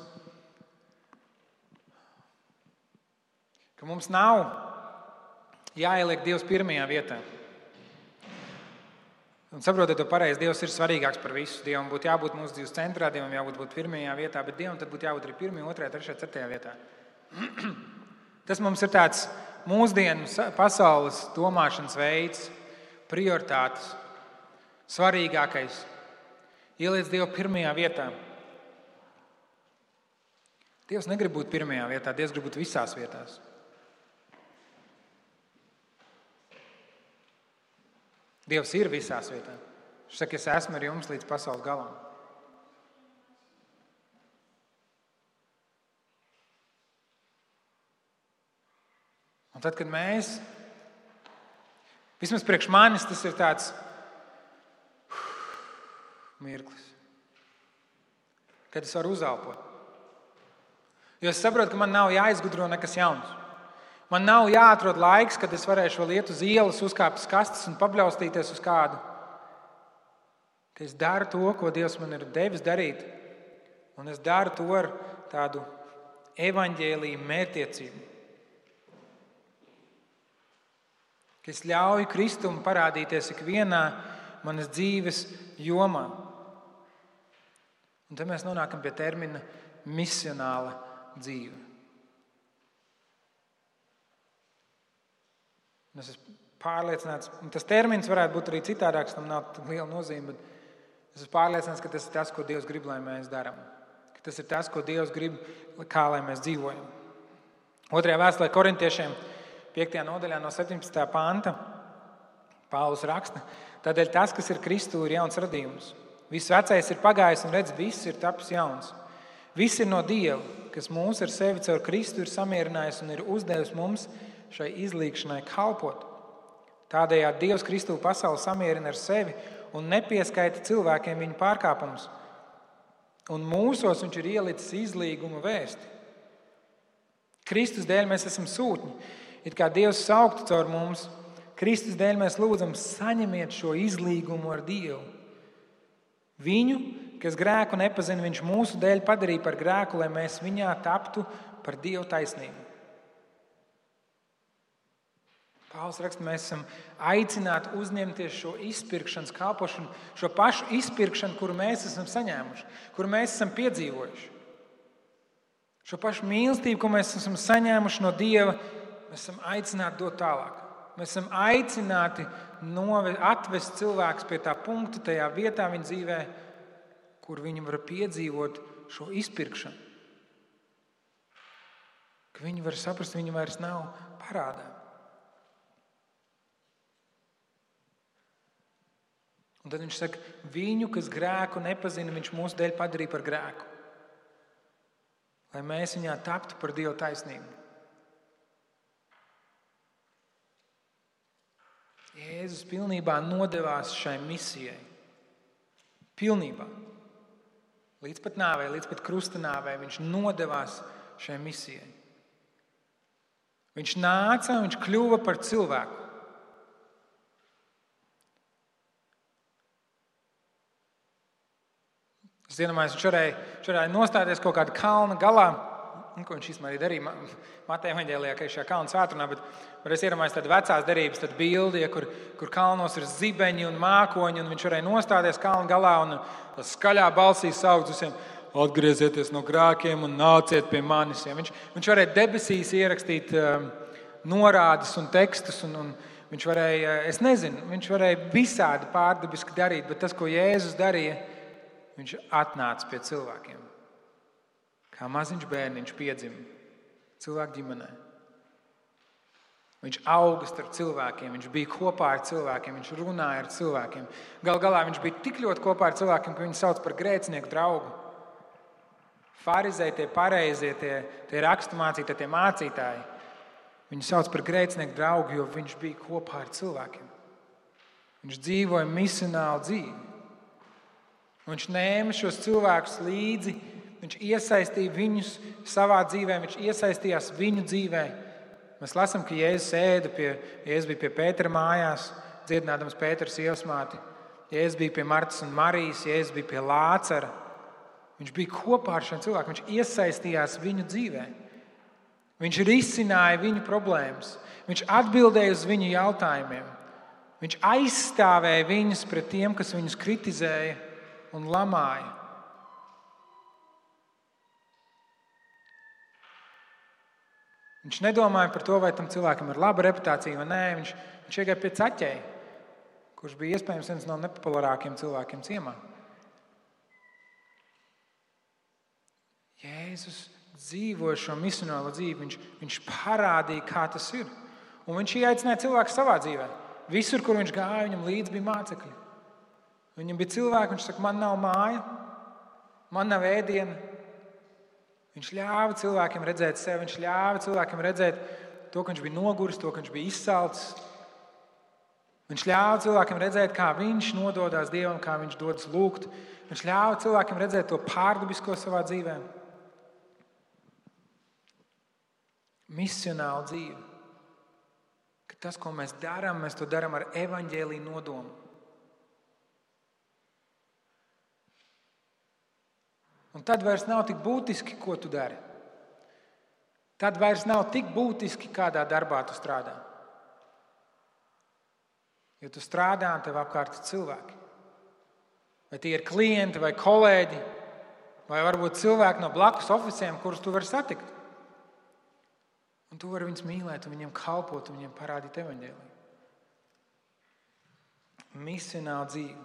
nav jāieliek Dievs pirmajā vietā. Un saprotiet to pareizi, Dievs ir svarīgāks par visu. Dievam būtu jābūt mūsu dzīves centrā, Dievam jābūt pirmajā vietā, bet Dievam tad būtu jābūt arī 1., 2., 3., 4. vietā. Tas mums ir tāds mūsdienu pasaules domāšanas veids, prioritātes, svarīgākais. Ieliec Dievu pirmajā vietā. Dievs negrib būt pirmajā vietā, Dievs grib būt visās vietās. Dievs ir visās vietās. Viņš saka, es esmu ar jums līdz pasaules galam. Un tad, kad mēs, vismaz priekš manis, tas ir tāds mirklis, kad es varu uzelpot. Jo es saprotu, ka man nav jāizgudro nekas jauns. Man nav jāatrod laiks, kad es varēšu vēl iet uz ielas, uzkāpt uz kastes un pabļaustīties uz kādu. Ka es daru to, ko Dievs man ir devis darīt, un es daru to ar tādu evaņģēliju mērķtiecību. Ka es ļauju Kristum parādīties ikvienā manas dzīves jomā. Un tad mēs nonākam pie termina misionāla dzīve. Es esmu pārliecināts, un tas termins varētu būt arī citādāks, tam nav tik liela nozīme, bet es esmu pārliecināts, ka tas ir tas, ko Dievs grib, lai mēs darām. Ka tas ir tas, ko Dievs grib, kā lai mēs dzīvojam. 2. vēstulē Korintiešiem 5. nodaļā no 17. panta Pāvils raksta: tādēļ tas, kas ir Kristū, ir jauns radījums. Viss vecais ir pagājis un redz, viss ir tapis jauns. Viss ir no Dieva, kas mūs ar sevi caur Kristu ir samierinājis un ir uzdevis mums šai izlīgšanai kalpot. Tādējādi Dievs Kristū pasauli samierina ar sevi un nepieskaita cilvēkiem viņu pārkāpumus. Un mūsos viņš ir ielicis izlīguma vēsti. Kristus dēļ mēs esam sūtņi, it kā Dievs sauktu caur mums. Kristus dēļ mēs lūdzam, saņemiet šo izlīgumu ar Dievu. Viņu, kas grēku nepazina, viņš mūsu dēļ padarīja par grēku, lai mēs viņā taptu par Dievu taisnību. Pāvils raksta, mēs esam aicināti uzņemties šo izpirkšanas kalpošanu, šo pašu izpirkšanu, kuru mēs esam saņēmuši, kuru mēs esam piedzīvojuši. Šo pašu mīlestību, ko mēs esam saņēmuši no Dieva, mēs esam aicināti dot tālāk. Mēs esam aicināti atvest cilvēkus pie tā punkta, tajā vietā viņa dzīvē, kur viņi var piedzīvot šo izpirkšanu. Ka viņi var saprast, ka viņi vairs nav parādā. Un tad viņš saka, viņu, kas grēku nepazina, viņš mūsu dēļ padarīja par grēku. Lai mēs viņā taptu par Dieva taisnību. Jēzus pilnībā nodevās šai misijai. Pilnībā. Līdz pat nāvei, līdz pat krusta nāvei viņš nodevās šai misijai. Viņš nāca un viņš kļuva par cilvēku. Es iedomājos, viņš varēja nostāties kaut kāda kalna galā, ko viņš īstenībā arī darīja Mateja evaņģēlijā, ka ir šajā kalna svētdienā, bet es iedomājos tādu vecās derības, tādu bildi, kur kalnos ir zibeņi un mākoņi, un viņš varēja nostāties kalna galā un skaļā balsī saukt visiem: atgriezieties no grēkiem un nāciet pie manis. Viņš varēja debesīs ierakstīt norādes un tekstus, un viņš varēja, es nezinu, viņš varēja visādi pārdabiski darīt, bet tas, ko Jēzus darīja, viņš atnāca pie cilvēkiem. Kā maziņš bērniņš piedzima cilvēku ģimenē. Viņš auga starp cilvēkiem, viņš bija kopā ar cilvēkiem, viņš runāja ar cilvēkiem. Gal galā viņš bija tik ļoti kopā ar cilvēkiem, ka viņu sauc par grēcinieku draugu. Farizēji, tie pareizie, tie raksturmācītāji, tie mācītāji, viņu sauc par grēcinieku draugu, jo viņš bija kopā ar cilvēkiem. Viņš dzīvoja misionālu dzīvi. Viņš ņēma šos cilvēkus līdzi, viņš iesaistīja viņus savā dzīvē, viņš iesaistījās viņu dzīvē. Mēs lasām, ka Jēzus bija pie Pētera mājās, dziedinādams Pētera sievasmāti. Jēzus bija pie Martas un Marijas, Jēzus bija pie Lācara. Viņš bija kopā ar šiem cilvēkiem, viņš iesaistījās viņu dzīvē. Viņš risināja viņu problēmas, viņš atbildēja uz viņu jautājumiem. Viņš aizstāvēja viņus pret tiem, kas viņus kritizēja un lamāja. Viņš nedomāja par to, vai tam cilvēkam ir laba reputācija vai nē. Viņš iegāja pie Caķeja, kurš bija iespējams viens no nepopulārākiem cilvēkiem ciemā. Jēzus dzīvoja šo misionālo dzīvi. Viņš parādīja, kā tas ir. Un viņš ieaicināja cilvēku savā dzīvē. Visur, kur viņš gāja, viņam līdzi bija mācekļi. Viņam bija cilvēki, viņš saka, man nav māja, man nav ēdiena. Viņš ļāva cilvēkiem redzēt sevi, viņš ļāva cilvēkiem redzēt to, ka viņš bija noguris, to, ka viņš bija izsalcis. Viņš ļāva cilvēkiem redzēt, kā viņš nododās Dievam, kā viņš dodas lūgt. Viņš ļāva cilvēkiem redzēt to pārdabisko savā dzīvē. Misionāla dzīve. Ka tas, ko mēs darām, mēs to darām ar evaņģēliju nodomu. Un tad vairs nav tik būtiski, ko tu dari. Tad vairs nav tik būtiski, kādā darbā tu strādā. Jo tu strādā un tev apkārt ir cilvēki. Vai tie ir klienti vai kolēģi, vai varbūt cilvēki no blakus oficiem, kurus tu vari satikt. Un tu vari viņus mīlēt un viņiem kalpot un viņiem parādīt evaņģēliju. misionālu dzīvi.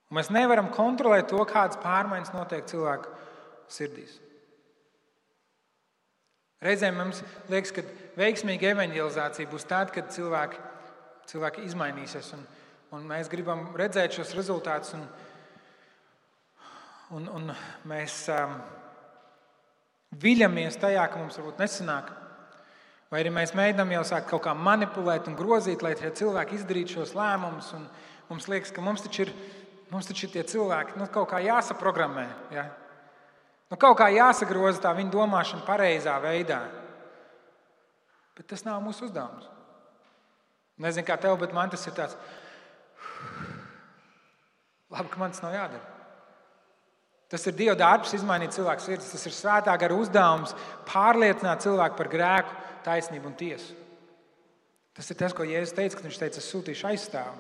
Un mēs nevaram kontrolēt to, kādas pārmaiņas notiek cilvēku sirdīs. Reizēm mums liekas, ka veiksmīga evanģelizācija būs tad, kad cilvēki izmainīsies. Un mēs gribam redzēt šos rezultātus. Un mēs viļamies tajā, ka mums varbūt nesanāk. Vai arī mēs mēģinām jau sākt kaut kā manipulēt un grozīt, lai tie cilvēki izdarītu šos lēmumus. Un mums liekas, ka mums taču ir tie cilvēki kaut kā jāsaprogrammē. Ja? Kaut kā jāsagroza tā viņa domāšana pareizā veidā. Bet tas nav mūsu uzdevums. Nezinu, kā tev, bet man tas ir tāds. Labi, ka man tas nav jādara. Tas ir Dieva darbs izmainīt cilvēku sirdis. Tas ir svētā gara uzdevums pārliecināt cilvēku par grēku, taisnību un tiesu. Tas ir tas, ko Jēzus teica, kad viņš teica, es sūtīšu aizstāvu.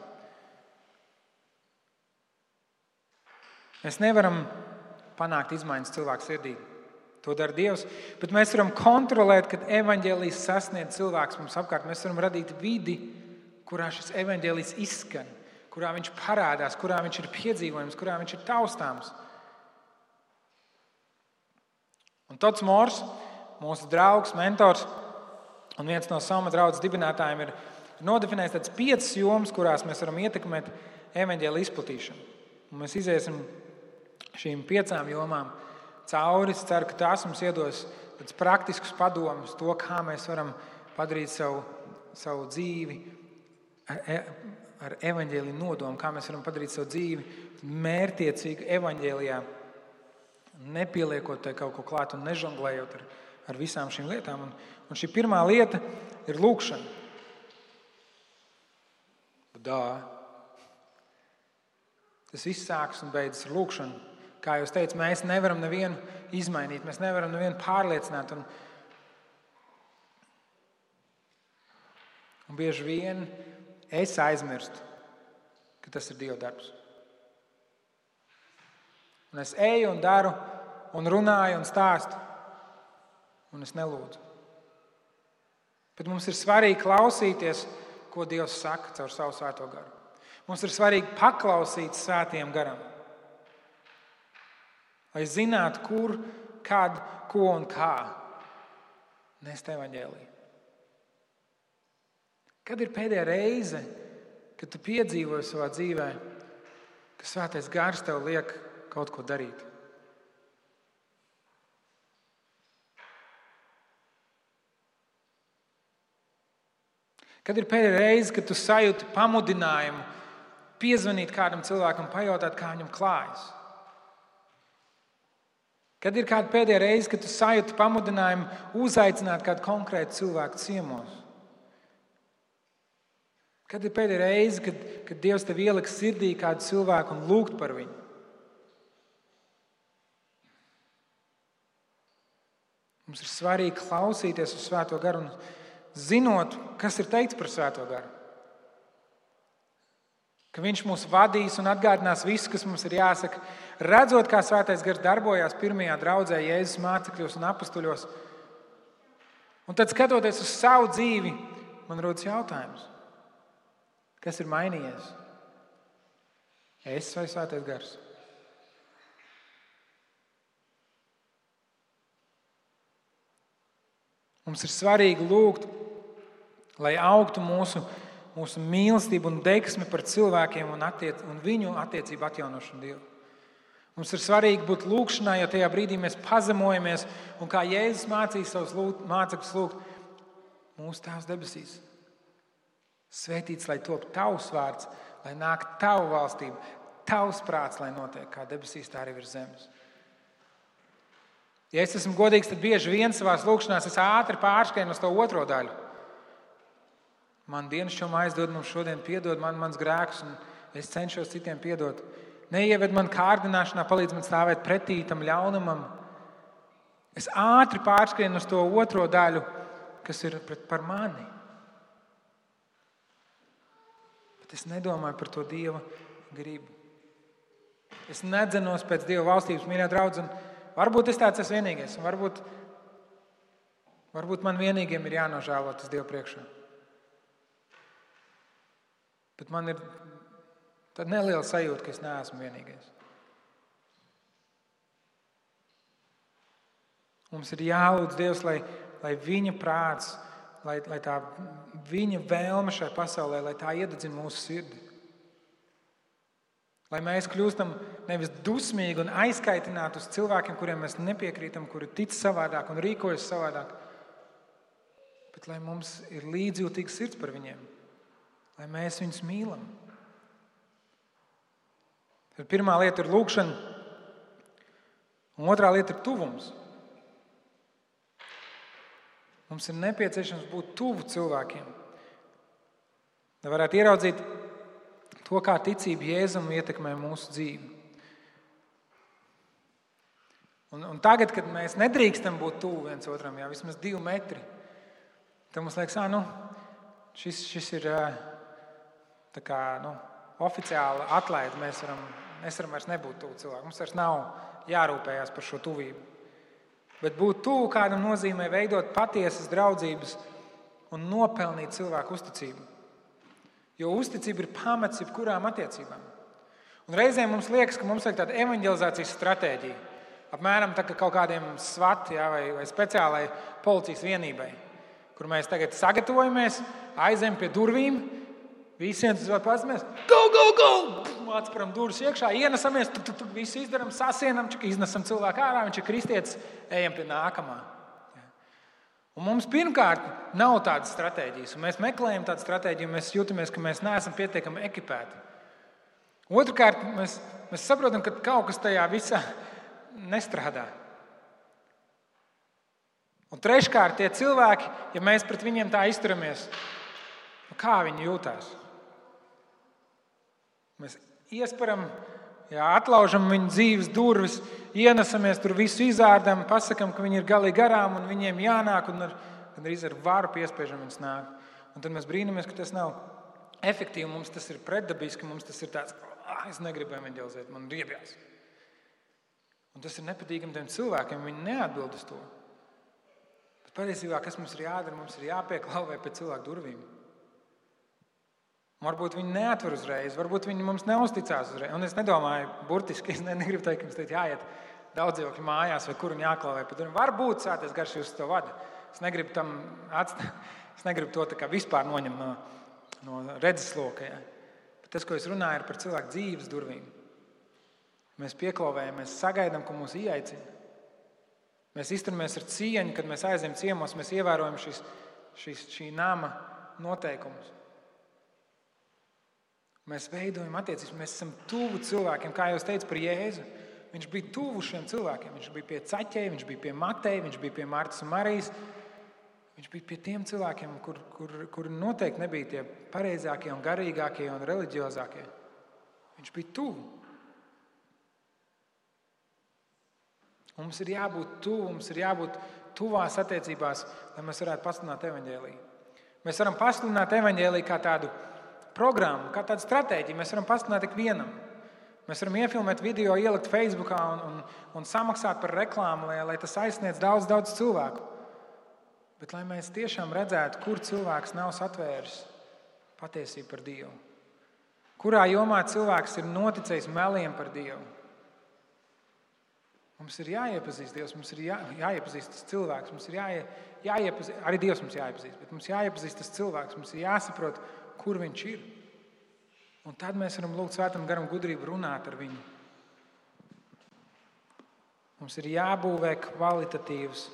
Mēs nevaram panākt izmaiņas cilvēku sirdī. To dara Dievs. Bet mēs varam kontrolēt, kad evaņģēlijs sasniedz cilvēks mums apkārt. Mēs varam radīt vidi, kurā šis evaņģēlijs izskan, kurā viņš parādās, kurā viņš ir piedzīvojams, kurā viņš ir taustāms. Un Tots Mors, mūsu draugs, mentors un viens no Salma draudzes dibinātājiem ir nodefinējis tādas 5 jomas, kurās mēs varam ietekmēt evaņģēlija izplatīšanu. Un mēs iziesim šīm 5 jomām cauri. Es ceru, ka tās mums iedos tādus praktiskus padomus, to, kā mēs varam padarīt savu dzīvi ar evaņģēlija nodomu, kā mēs varam padarīt savu dzīvi mērķtiecīgu evaņģēlijā, nepieliekot te kaut ko klāt un nežonglējot ar visām šīm lietām. Un šī pirmā lieta ir lūkšana. Tas viss sākas un beidzas ar lūkšanu. Kā jūs teicat, mēs nevaram nevienu izmainīt, mēs nevaram nevienu pārliecināt. Un bieži vien es aizmirstu, ka tas ir Dieva darbs. Un es eju un daru, un runāju un stāstu, un es nelūdzu. Bet mums ir svarīgi klausīties, ko Dievs saka caur savu svēto garu. Mums ir svarīgi paklausīt svētajam garam, lai zinātu, kur, kad, ko un kā nest evaņģēliju. Kad ir pēdējā reize, kad tu piedzīvoji savā dzīvē, ka svētais gars tev liek kaut ko darīt? Kad ir pēdējā reize, kad tu sajūti pamudinājumu piezvanīt kādam cilvēkam, pajautāt, kā viņam klājas? Kad ir kāda pēdējā reize, kad tu sajūti pamudinājumu uzaicināt kādu konkrētu cilvēku ciemos? Kad ir pēdējā reize, kad Dievs tev ieliks sirdī kādu cilvēku un lūgt par viņu? Mums ir svarīgi klausīties uz Svēto garu un zinot, kas ir teikts par Svēto garu. Ka viņš mūs vadīs un atgādinās visu, kas mums ir jāsaka. Redzot, kā Svētais gars darbojās pirmajā draudzē Jēzus mācekļos un apustuļos. Un tad, skatoties uz savu dzīvi, man rodas jautājums. Kas ir mainījies? Es vai Svētais gars? Mums ir svarīgi lūgt, lai augtu mūsu mīlestība un deksme par cilvēkiem un viņu attiecību atjaunošanu Dievu. Mums ir svarīgi būt lūgšanā, jo tajā brīdī mēs pazemojamies un kā Jēzus mācīja savus mācekļus lūgt, mūsu Tēvs debesīs. Svētīts, lai top tavs vārds, lai nāk tava valstība, tavs prāts, lai notiek kā debesīs, tā arī virs zemes. Ja es esmu godīgs, tad bieži vien savās lūkšanās es ātri pārskrienu uz to otro daļu. Man dienasčom aizdod, mums šodien piedod mans grēks, un es cenšos citiem piedot. Neieved man kārdināšanā, palīdz man stāvēt pretī tam ļaunumam. Es ātri pārskrienu uz to otro daļu, kas ir par mani. Bet es nedomāju par to Dieva gribu. Es nedzenos pēc Dieva valstības, mīļā draudz, un varbūt es tāds esmu vienīgais, un varbūt man vienīgiem ir jānožēlo tas Dievu priekšā. Bet man ir tāda neliela sajūta, ka es neesmu vienīgais. Mums ir jālūdz Dievs, lai viņa prāts, lai tā viņa vēlme šai pasaulē, lai tā iededzina mūsu sirdi. Lai mēs kļūstam nevis dusmīgi un aizkaitināti uz cilvēkiem, kuriem mēs nepiekrītam, kuri tic savādāk un rīkojas savādāk, bet lai mums ir līdzjūtīgs sirds par viņiem, lai mēs viņus mīlam. Tad pirmā lieta ir lūgšana, un otrā lieta ir tuvums. Mums ir nepieciešams būt tuvu cilvēkiem, lai varētu ieraudzīt to, kā ticība Jēzum ietekmē mūsu dzīvi. Un tagad, kad mēs nedrīkstam būt tuvu viens otram, vismaz 2 metri, tad mums liekas, šis ir tā kā, oficiāli atlaid. Mēs varam vairs nebūt tuvu cilvēku. Mums vairs nav jārūpējās par šo tuvību. Bet būt tuvu kādam nozīmē veidot patiesas draudzības un nopelnīt cilvēku uzticību. Jo uzticība ir pamats jebkurām attiecībām. Un reizēm mums liekas, ka mums vajag tāda evanģelizācijas stratēģija. Apmēram tā kā kaut kādiem SWAT vai speciālai policijas vienībai, kur mēs tagad sagatavojamies, aizējam pie durvīm, visiem tas vēl pats mēs go! Atspēram durvis iekšā, ienesamies, visu izdaram, sasienam, iznesam cilvēku ārā, viņš ir kristietis, ejam pie nākamā. Un mums pirmkārt nav tādas stratēģijas, un mēs meklējam tādu stratēģiju, un mēs jūtamies, ka mēs neesam pietiekami ekipēti. Otrkārt, mēs saprotam, ka kaut kas tajā visā nestrādā. Un treškārt, tie cilvēki, ja mēs pret viņiem tā izturamies, kā viņi jūtās? Mēs iesparam, atlaužam viņu dzīves durvis, ienesamies, tur visu izārdam, pasakam, ka viņi ir galīgi garām un viņiem jānāk, un gandrīz ar varu piespiežam viņus nāk. Un tad mēs brīnamies, ka tas nav efektīvi, mums tas ir pretdabiski, mums tas ir tāds, es negribu evanģelizēt, man riebjās. Un tas ir nepatīkami tiem cilvēkiem, viņi neatbild uz to. Bet patiesībā, kas mums ir jādara, mums ir jāpieklauvē pie cilvēku durvīm. Varbūt viņi neatver uzreiz, varbūt viņi mums neuzticās uzreiz. Un es nedomāju burtiski, es negribu teikt, ka mums teikt jāiet daudzdzīvokļu mājās vai kur un jāklauvē pie durvīm. Varbūt Svētais Gars jūs to vada. Es negribu to tā kā vispār noņemt no redzesloka. Bet tas, ko es runāju, ir par cilvēku dzīves durvīm. Mēs pieklauvējam, mēs sagaidām, ka mūs ieaicina. Mēs izturamies ar cieņu, kad mēs aizējam ciemos, mēs ievērojam šī nama noteikumus. Mēs veidojam attiecības, mēs esam tuvu cilvēkiem, kā jau es teicu par Jēzu. Viņš bija tuvu šiem cilvēkiem. Viņš bija pie Caķeja, viņš bija pie Mateja, viņš bija pie Martas un Marijas. Viņš bija pie tiem cilvēkiem, kur noteikti nebija tie pareizākie un garīgākie un reliģiozākie. Viņš bija tuvu. Mums ir jābūt tuvu, mums ir jābūt tuvās attiecībās, lai mēs varētu pasludināt evaņģēliju. Mēs varam pasludināt evaņģēliju kā tādu programmu, kā tādu stratēģiju. Mēs varam pasludināt ikvienam. Mēs varam iefilmēt video, ielikt Facebookā un samaksāt par reklāmu, lai tas aizsniedz daudz cilvēku. Bet lai mēs tiešām redzētu, kur cilvēks nav satvēris patiesību par Dievu. Kurā jomā cilvēks ir noticējis meliem par Dievu. Mums ir jāiepazīst Dievs, mums ir jāiepazīst tas cilvēks, mums ir jāiepazīst, arī Dievs mums jāiepazīst, bet mums jāiepazīst tas cilvēks, mums ir jāsaprot, kur viņš ir. Un tad mēs varam lūgt Svētam Garam gudrību runāt ar viņu. Mums ir jābūvē kvalitatīvas,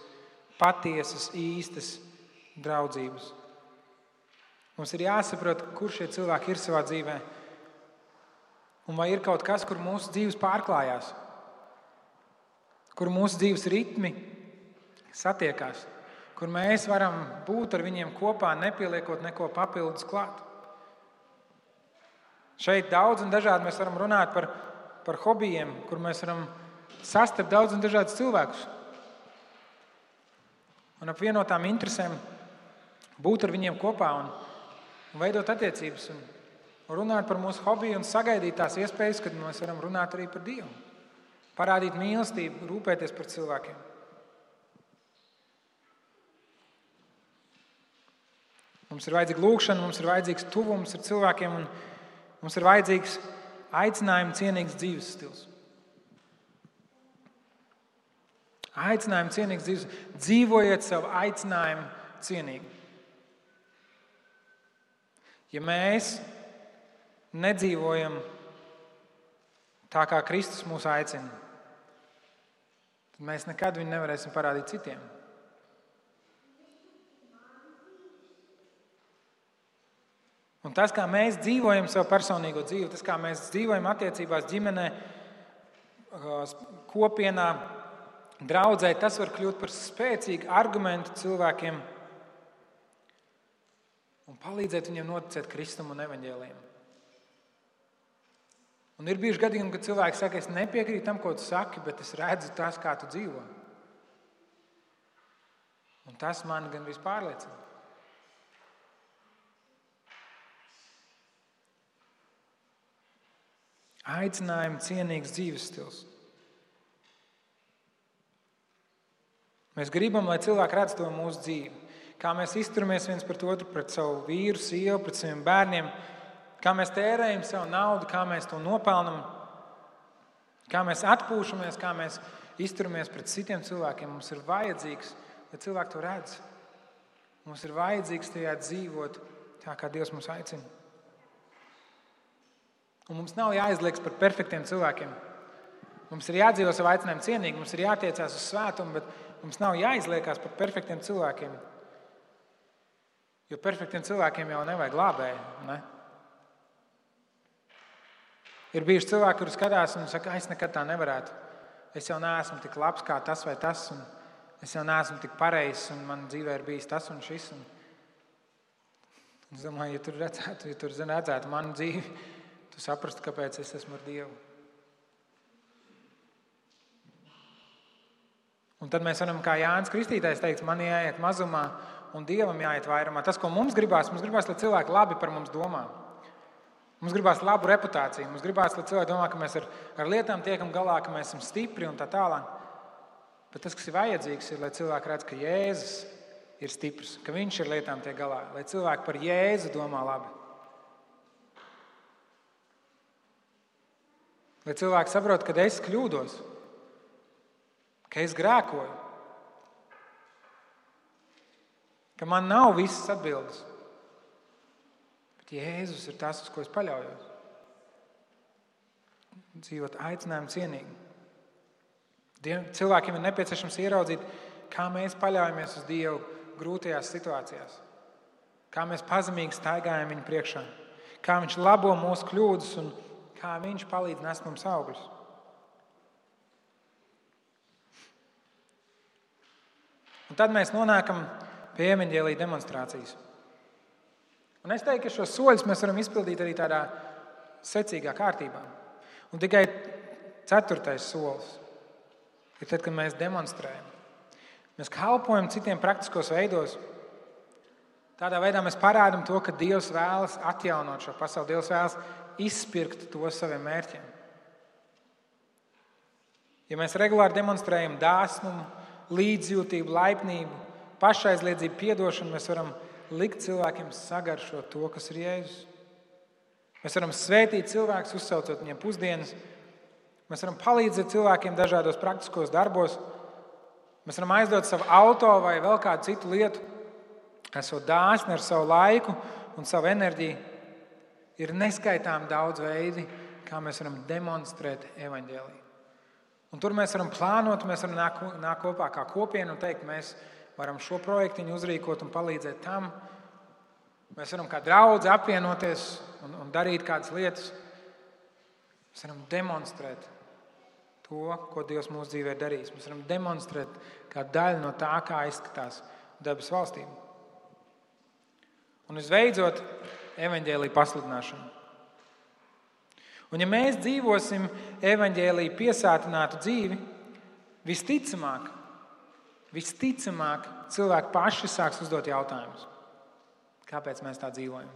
patiesas, īstas draudzības. Mums ir jāsaprot, kur šie cilvēki ir savā dzīvē. Un vai ir kaut kas, kur mūsu dzīves pārklājās, kur mūsu dzīves ritmi satiekās, kur mēs varam būt ar viņiem kopā, nepieliekot neko papildus klāt. Šeit daudz un dažādi mēs varam runāt par hobijiem, kur mēs varam sastapt daudz un dažādus cilvēkus. Un ap vienotām interesēm būt ar viņiem kopā un veidot attiecības un runāt par mūsu hobiju un sagaidīt tās iespējas, kad mēs varam runāt arī par Dievu. Parādīt mīlestību, rūpēties par cilvēkiem. Mums ir vajadzīga lūgšana, mums ir vajadzīgs tuvums ar cilvēkiem un Mums ir vajadzīgs aicinājuma cienīgs dzīves stils. Aicinājuma cienīgs dzīves. Dzīvojiet savu aicinājumu cienīgi. Ja mēs nedzīvojam tā, kā Kristus mūs aicina, tad mēs nekad viņu nevarēsim parādīt citiem. Un tas, kā mēs dzīvojam savu personīgo dzīvi, tas, kā mēs dzīvojam attiecībās ģimenē, kopienā, draudzē, tas var kļūt par spēcīgu argumentu cilvēkiem un palīdzēt viņiem noticēt Kristum un evaņģēlijam. Un ir bijuši gadījumi, kad cilvēki saka, es nepiekrītu tam, ko tu saki, bet es redzu tas, kā tu dzīvo. Un tas mani gan vispārliecina. Aicinājuma cienīgs dzīves stils. Mēs gribam, lai cilvēki redz to mūsu dzīvi. Kā mēs izturamies viens pret otru, pret savu vīru, sievu, pret saviem bērniem. Kā mēs tērējam savu naudu, kā mēs to nopelnam. Kā mēs atpūšamies, kā mēs izturamies pret citiem cilvēkiem. Mums ir vajadzīgs, lai cilvēki to redz. Mums ir vajadzīgs tajā dzīvot tā, kā Dievs mūs aicina. Un mums nav jāizliekas par perfektiem cilvēkiem. Mums ir jādzīvo savu aicinājumu cienīgi, mums ir jātiecās uz svētumu, bet mums nav jāizliekas par perfektiem cilvēkiem. Jo perfektiem cilvēkiem jau nevajag glābēju, ne? Ir bijuši cilvēki, kuri skatās un saka, es nekad tā nevarētu. Es jau neesmu tik labs kā tas vai tas, un es jau neesmu tik pareizs, un man dzīvē ir bijis tas un šis. Un es domāju, ja tur redzētu manu dzīvi, tu saprastu, kāpēc es esmu ar Dievu. Un tad mēs varam, kā Jānis Kristītājs teikt, man jāiet mazumā un Dievam jāiet vairumā. Tas, ko mums gribās, lai cilvēki labi par mums domā. Mums gribās labu reputāciju. Mums gribās, lai cilvēki domā, ka mēs ar lietām tiekam galā, ka mēs esam stipri un tā tālāk. Bet tas, kas ir vajadzīgs, ir, lai cilvēki redz, ka Jēzus ir stiprs, ka viņš ar lietām tiek galā. Lai cilvēki par Jēzu domā labi. Lai cilvēki saprot, ka es kļūdos, ka es grēkoju, ka man nav visas atbildes, bet Jēzus ir tas, uz ko es paļaujos. Dzīvot aicinājumu cienīgi. Cilvēkiem ir nepieciešams ieraudzīt, kā mēs paļaujamies uz Dievu grūtajās situācijās, kā mēs pazemīgi staigājam viņu priekšā, kā viņš labo mūsu kļūdas un kā viņš palīdz nest mums augļus. Un tad mēs nonākam pie evaņģēlija demonstrācijas. Un es teiktu, ka šos soļus mēs varam izpildīt arī tādā secīgā kārtībā. Un tikai 4. solis ir tad, kad mēs demonstrējam. Mēs kalpojam citiem praktiskos veidos. Tādā veidā mēs parādam to, ka Dievs vēlas atjaunot šo pasauli. Dievs vēlas izpirkt to saviem mērķiem. Ja mēs regulāri demonstrējam dāsnumu, līdzjūtību, laipnību, pašaizliedzību, piedošanu, mēs varam likt cilvēkiem sagaršot to, kas ir Jēzus. Mēs varam svētīt cilvēkus, uzsaucot viņiem pusdienas. Mēs varam palīdzēt cilvēkiem dažādos praktiskos darbos. Mēs varam aizdot savu auto vai vēl kādu citu lietu, esot dāsni ar savu laiku un savu enerģiju. Ir neskaitām daudz veidi, kā mēs varam demonstrēt evaņģēliju. Un tur mēs varam plānot, mēs varam nākt kopā kā kopiena un teikt, mēs varam šo projektiņu uzrīkot un palīdzēt tam. Mēs varam kā draudzi apvienoties un darīt kādas lietas. Mēs varam demonstrēt to, ko Dievs mūsu dzīvē darīs. Mēs varam demonstrēt kā daļu no tā, kā izskatās debes valstība. Un visbeidzot, evaņģēlija pasludināšana. Un ja mēs dzīvosim evaņģēlija piesātinātu dzīvi, visticamāk cilvēki paši sāks uzdot jautājumus. Kāpēc mēs tā dzīvojam?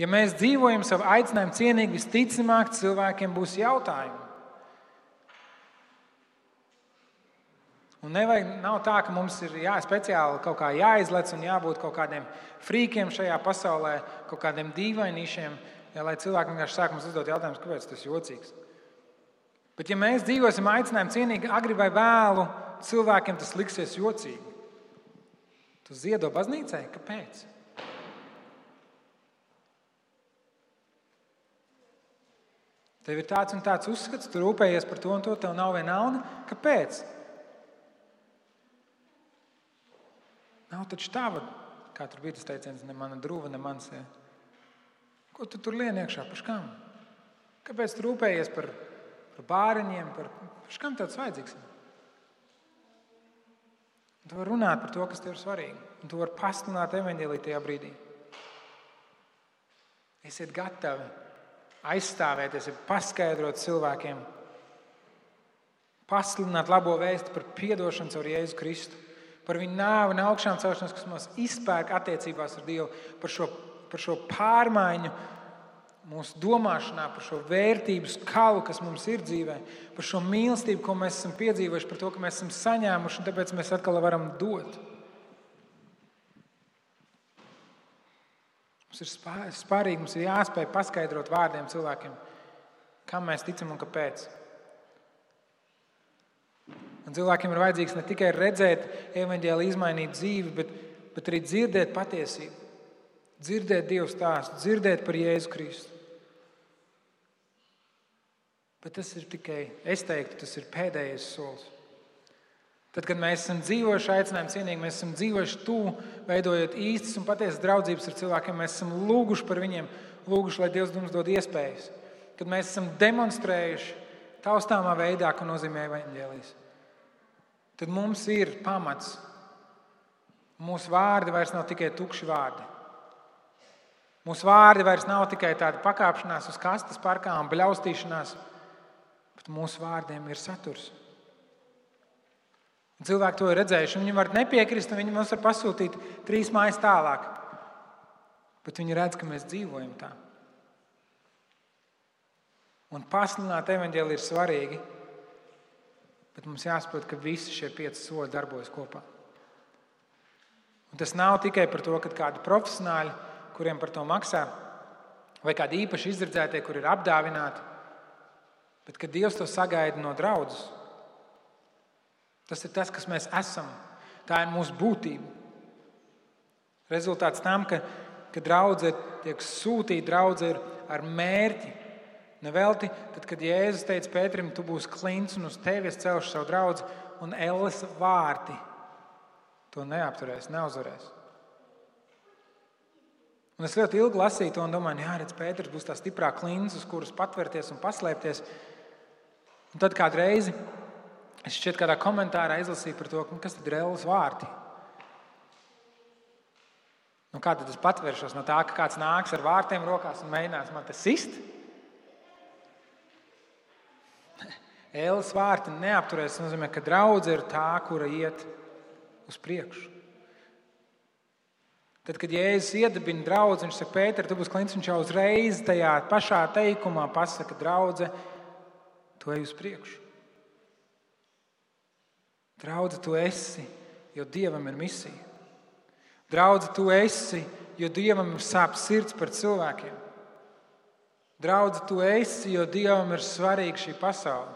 Ja mēs dzīvojam savu aicinājumu cienīgi, visticamāk cilvēkiem būs jautājumi. Un nav tā, ka mums ir speciāli kaut kā jāizlec un jābūt kaut kādiem frīkiem šajā pasaulē, kaut kādiem dīvainīšiem, Ja, lai cilvēki vienkārši sāk mums uzdot jautājumus, kāpēc tas ir jocīgs. Bet ja mēs dzīvosim aicinājumu cienīgi, agri vai vēlu, cilvēkiem tas liksies jocīgi. Tu ziedo baznīcai? Kāpēc? Tev ir tāds un tāds uzskats, tu rūpējies par to un to, tev nav viena nauda. Kāpēc? Nav taču tava, kā tur bija tas teiciens, ne mana druva, ne mans. Ja. Ko tu tur lien iekšā? Par škām? Kāpēc tu rūpējies par bāriņiem? Par škām tāds vajadzīgs? Tu vari runāt par to, kas tev ir svarīgi. Un tu vari pasludināt evaņģēliju tajā brīdī. Esiet gatavi aizstāvēties, paskaidrot cilvēkiem, pasludināt labo vēstu par piedošanu caur Jēzu Kristu, par viņu nāvi un augšām celšanos, kas mūs izpērk attiecībās ar Dievu, par šo pārmaiņu mūsu domāšanā, par šo vērtību skalu, kas mums ir dzīvē, par šo mīlestību, ko mēs esam piedzīvojuši, par to, ka mēs esam saņēmuši, un tāpēc mēs atkal varam dot. Mums ir spārīgi, mums ir jāspēj paskaidrot vārdiem cilvēkiem, kam mēs ticam un kāpēc. Un cilvēkiem ir vajadzīgs ne tikai redzēt evaņģēliju izmainīt dzīvi, bet arī dzirdēt patiesību, dzirdēt Dievu stāstu, dzirdēt par Jēzu Kristu. Bet tas ir tikai, es teiktu, tas ir pēdējais solis. Tad, kad mēs esam dzīvojuši aicinājumu cienīgi, mēs esam dzīvojuši tuvu, veidojot īstas un patiesas draudzības ar cilvēkiem, mēs esam lūguši par viņiem, lūguši, lai Dievs mums dod iespējas. Kad mēs esam demonstrējuši taustāmā veidā, ko nozīmē evaņģēlijs. Tad mums ir pamats. Mūsu vārdi vairs nav tikai tukši vārdi. Mūsu vārdi vairs nav tikai tāda pakāpšanās uz kastes parkā un bļaustīšanās, bet mūsu vārdiem ir saturs. Un cilvēki to ir redzējuši. Viņi var nepiekrist, un viņi mums var pasūtīt 3 mājas tālāk. Bet viņi redz, ka mēs dzīvojam tā. Un pasludināt evaņģēliju ir svarīgi, bet mums jāsaprot, ka visi šie 5 soļi darbojas kopā. Un tas nav tikai par to, ka kādi profesionāļi, kuriem par to maksā, vai kādi īpaši izredzētie, kur ir apdāvināti, bet ka Dievs to sagaida no draudzes. Tas ir tas, kas mēs esam. Tā ir mūsu būtība. Rezultāts tam, ka draudze tiek sūtīta, draudze ir ar mērķi. Nevelti, tad, kad Jēzus teica Pēterim, tu būsi klints un uz tevi es celšu savu draudzi, un elles vārti to neapturēs, neuzvarēs. Un es ļoti ilgi lasīju to un domāju, jā, redz, Pēters būs tā stiprā klints, uz kuras patverties un paslēpties. Un tad kādu reizi es šķiet kādā komentārā izlasīju par to, kas tad ir elles vārti. Nu, kā tad es patvēršos no tā, ka kāds nāks ar vārtiem rokās un mēģinās man te sist? Elles vārti neapturēs, tas nozīmē, ka draudze ir tā, kura iet uz priekšu. Tad, kad Jēzus iedibina draudzi, viņš saka, Pēter, tu būsi klints, viņš jau uzreiz tajā pašā teikumā pasaka, draudze, tu ej uz priekšu. Draudze, tu esi, jo Dievam ir misija. Draudze, tu esi, jo Dievam ir sāp sirds par cilvēkiem. Draudze, tu esi, jo Dievam ir svarīga šī pasaule.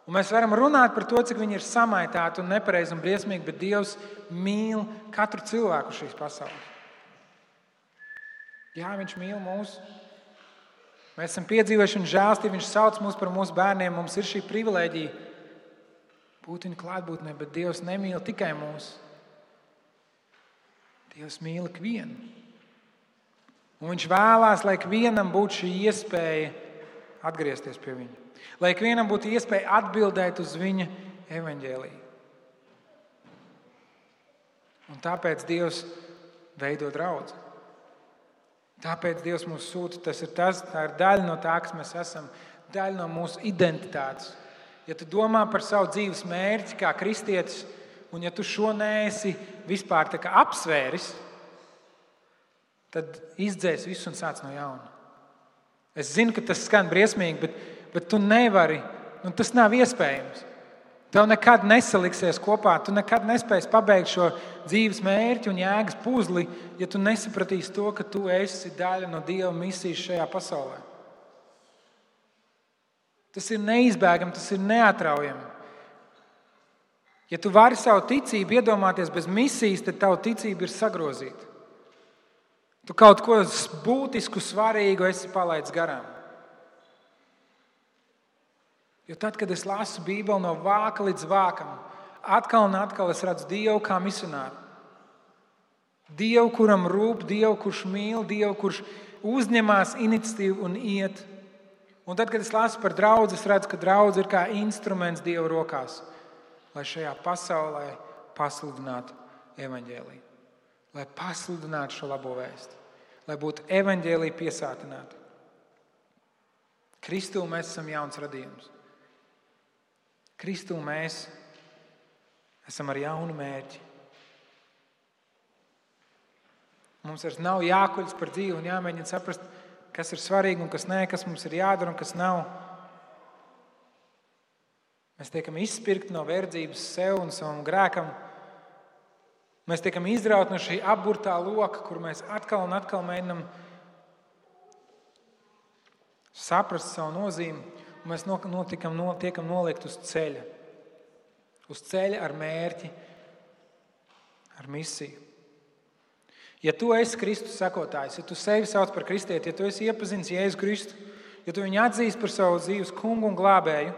Un mēs varam runāt par to, cik viņi ir samaitāti un nepareizi un briesmīgi, bet Dievs mīl katru cilvēku šīs pasaules. Jā, viņš mīl mūs. Mēs esam piedzīvojuši un žēlstību, viņš sauc mūs par mūsu bērniem, mums ir šī privilēģija būt viņa klātbūtnē, bet Dievs nemīl tikai mūs. Dievs mīl ikvienu. Un viņš vēlās, lai ikvienam būtu šī iespēja atgriezties pie viņa. Lai ikvienam būtu iespēja atbildēt uz viņa evaņģēliju. Un tāpēc Dievs veido draudzi. Tāpēc Dievs mūs sūta. Tā ir daļa no tā, kas mēs esam, daļa no mūsu identitātes. Ja tu domā par savu dzīves mērķi kā kristietis, un ja tu šo neesi vispār tā kā apsvēris, tad izdzēs visu un sāc no jauna. Es zinu, ka tas skan briesmīgi, bet tu nevari, tas nav iespējams. Tev nekad nesaliksies kopā, tu nekad nespēsi pabeigt šo dzīves mērķi un jēgas puzli, ja tu nesapratīsi to, ka tu esi daļa no Dieva misijas šajā pasaulē. Tas ir neizbēgami, tas ir neatraujami. Ja tu vari savu ticību iedomāties bez misijas, tad tava ticība ir sagrozīta. Tu kaut ko būtisku, svarīgu esi palaidis garām. Jo tad, kad es lasu Bībeli no vāka līdz vākam, atkal un atkal es redzu Dievu kā misionāru. Dievu, kuram rūp, Dievu, kurš mīl, Dievu, kurš uzņemās iniciatīvu un iet. Un tad, kad es lasu par draudzi, es redzu, ka draudze ir kā instruments Dieva rokās, lai šajā pasaulē pasludinātu evaņģēliju. Lai pasludinātu šo labo vēstu. Lai būtu evaņģēlija piesātināta. Kristū mēs esam jauns radījums. Kristū mēs esam ar jaunu mērķi. Mums vairs nav jākuļas par dzīvi un jāmēģina saprast, kas ir svarīgi un kas nē, kas mums ir jādara un kas nav. Mēs tiekam izspirkti no verdzības sev un savam grēkam. Mēs tiekam izrauti no šī apburtā loka, kur mēs atkal un atkal mēģinam saprast savu nozīmi. Un mēs tiekam noliekt uz ceļa. Uz ceļa ar mērķi, ar misiju. Ja tu esi Kristus sekotājs, ja tu sevi sauc par kristieti, ja tu esi iepazinis Jēzu Kristu, ja tu viņu atzīsti par savu dzīves kungu un glābēju,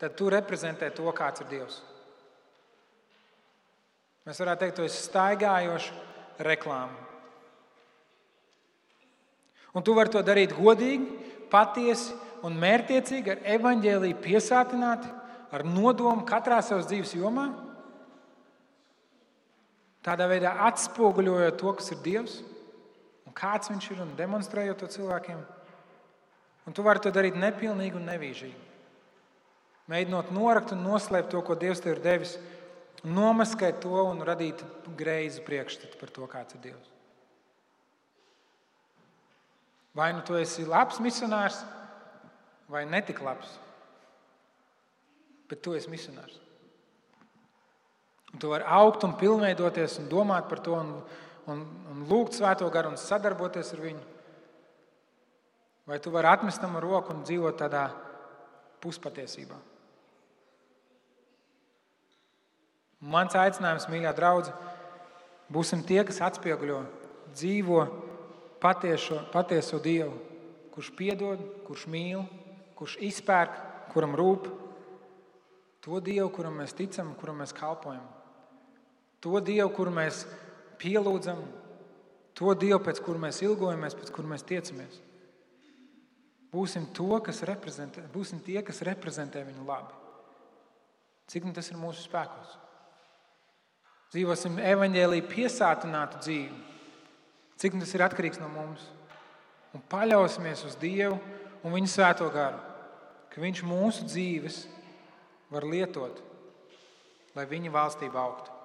tad tu reprezentē to, kāds ir Dievs. Mēs varētu teikt, tu esi staigājoša reklāma. Un tu vari to darīt godīgi, patiesi un mērķtiecīgi, ar evaņģēliju piesātināti, ar nodomu katrā savas dzīves jomā. Tādā veidā atspoguļojot to, kas ir Dievs un kāds viņš ir un demonstrējot to cilvēkiem. Un tu vari to darīt nepilnīgi un nevīžīgi. Mēģinot norakt un noslēpt to, ko Dievs tev ir devis, nomaskēt to un radīt greizu priekšstatu par to, kāds ir Dievs. Vai nu tu esi labs misionārs, vai netik labs, bet tu esi misionārs. Un tu vari augt un pilnveidoties un domāt par to un lūgt Svēto garu un sadarboties ar viņu. Vai tu vari atmest tam roku un dzīvot tādā puspatiesībā. Mans aicinājums, mīļā draudze, būsim tie, kas atspieguļo, dzīvo patieso Dievu, kurš piedod, kurš mīl, kurš izpērk, kuram rūp. To Dievu, kuram mēs ticam, kuram mēs kalpojam. To Dievu, kuru mēs pielūdzam. To Dievu, pēc kura mēs ilgojamies, pēc kura mēs tiecamies. Būsim tie, kas reprezentē viņu labi. Cik tas ir mūsu spēkos? Dzīvosim evaņģēliju piesātinātu dzīvi. Cik tas ir atkarīgs no mums. Un paļausimies uz Dievu un viņa Svēto garu, ka viņš mūsu dzīves var lietot, lai viņa valstība augtu.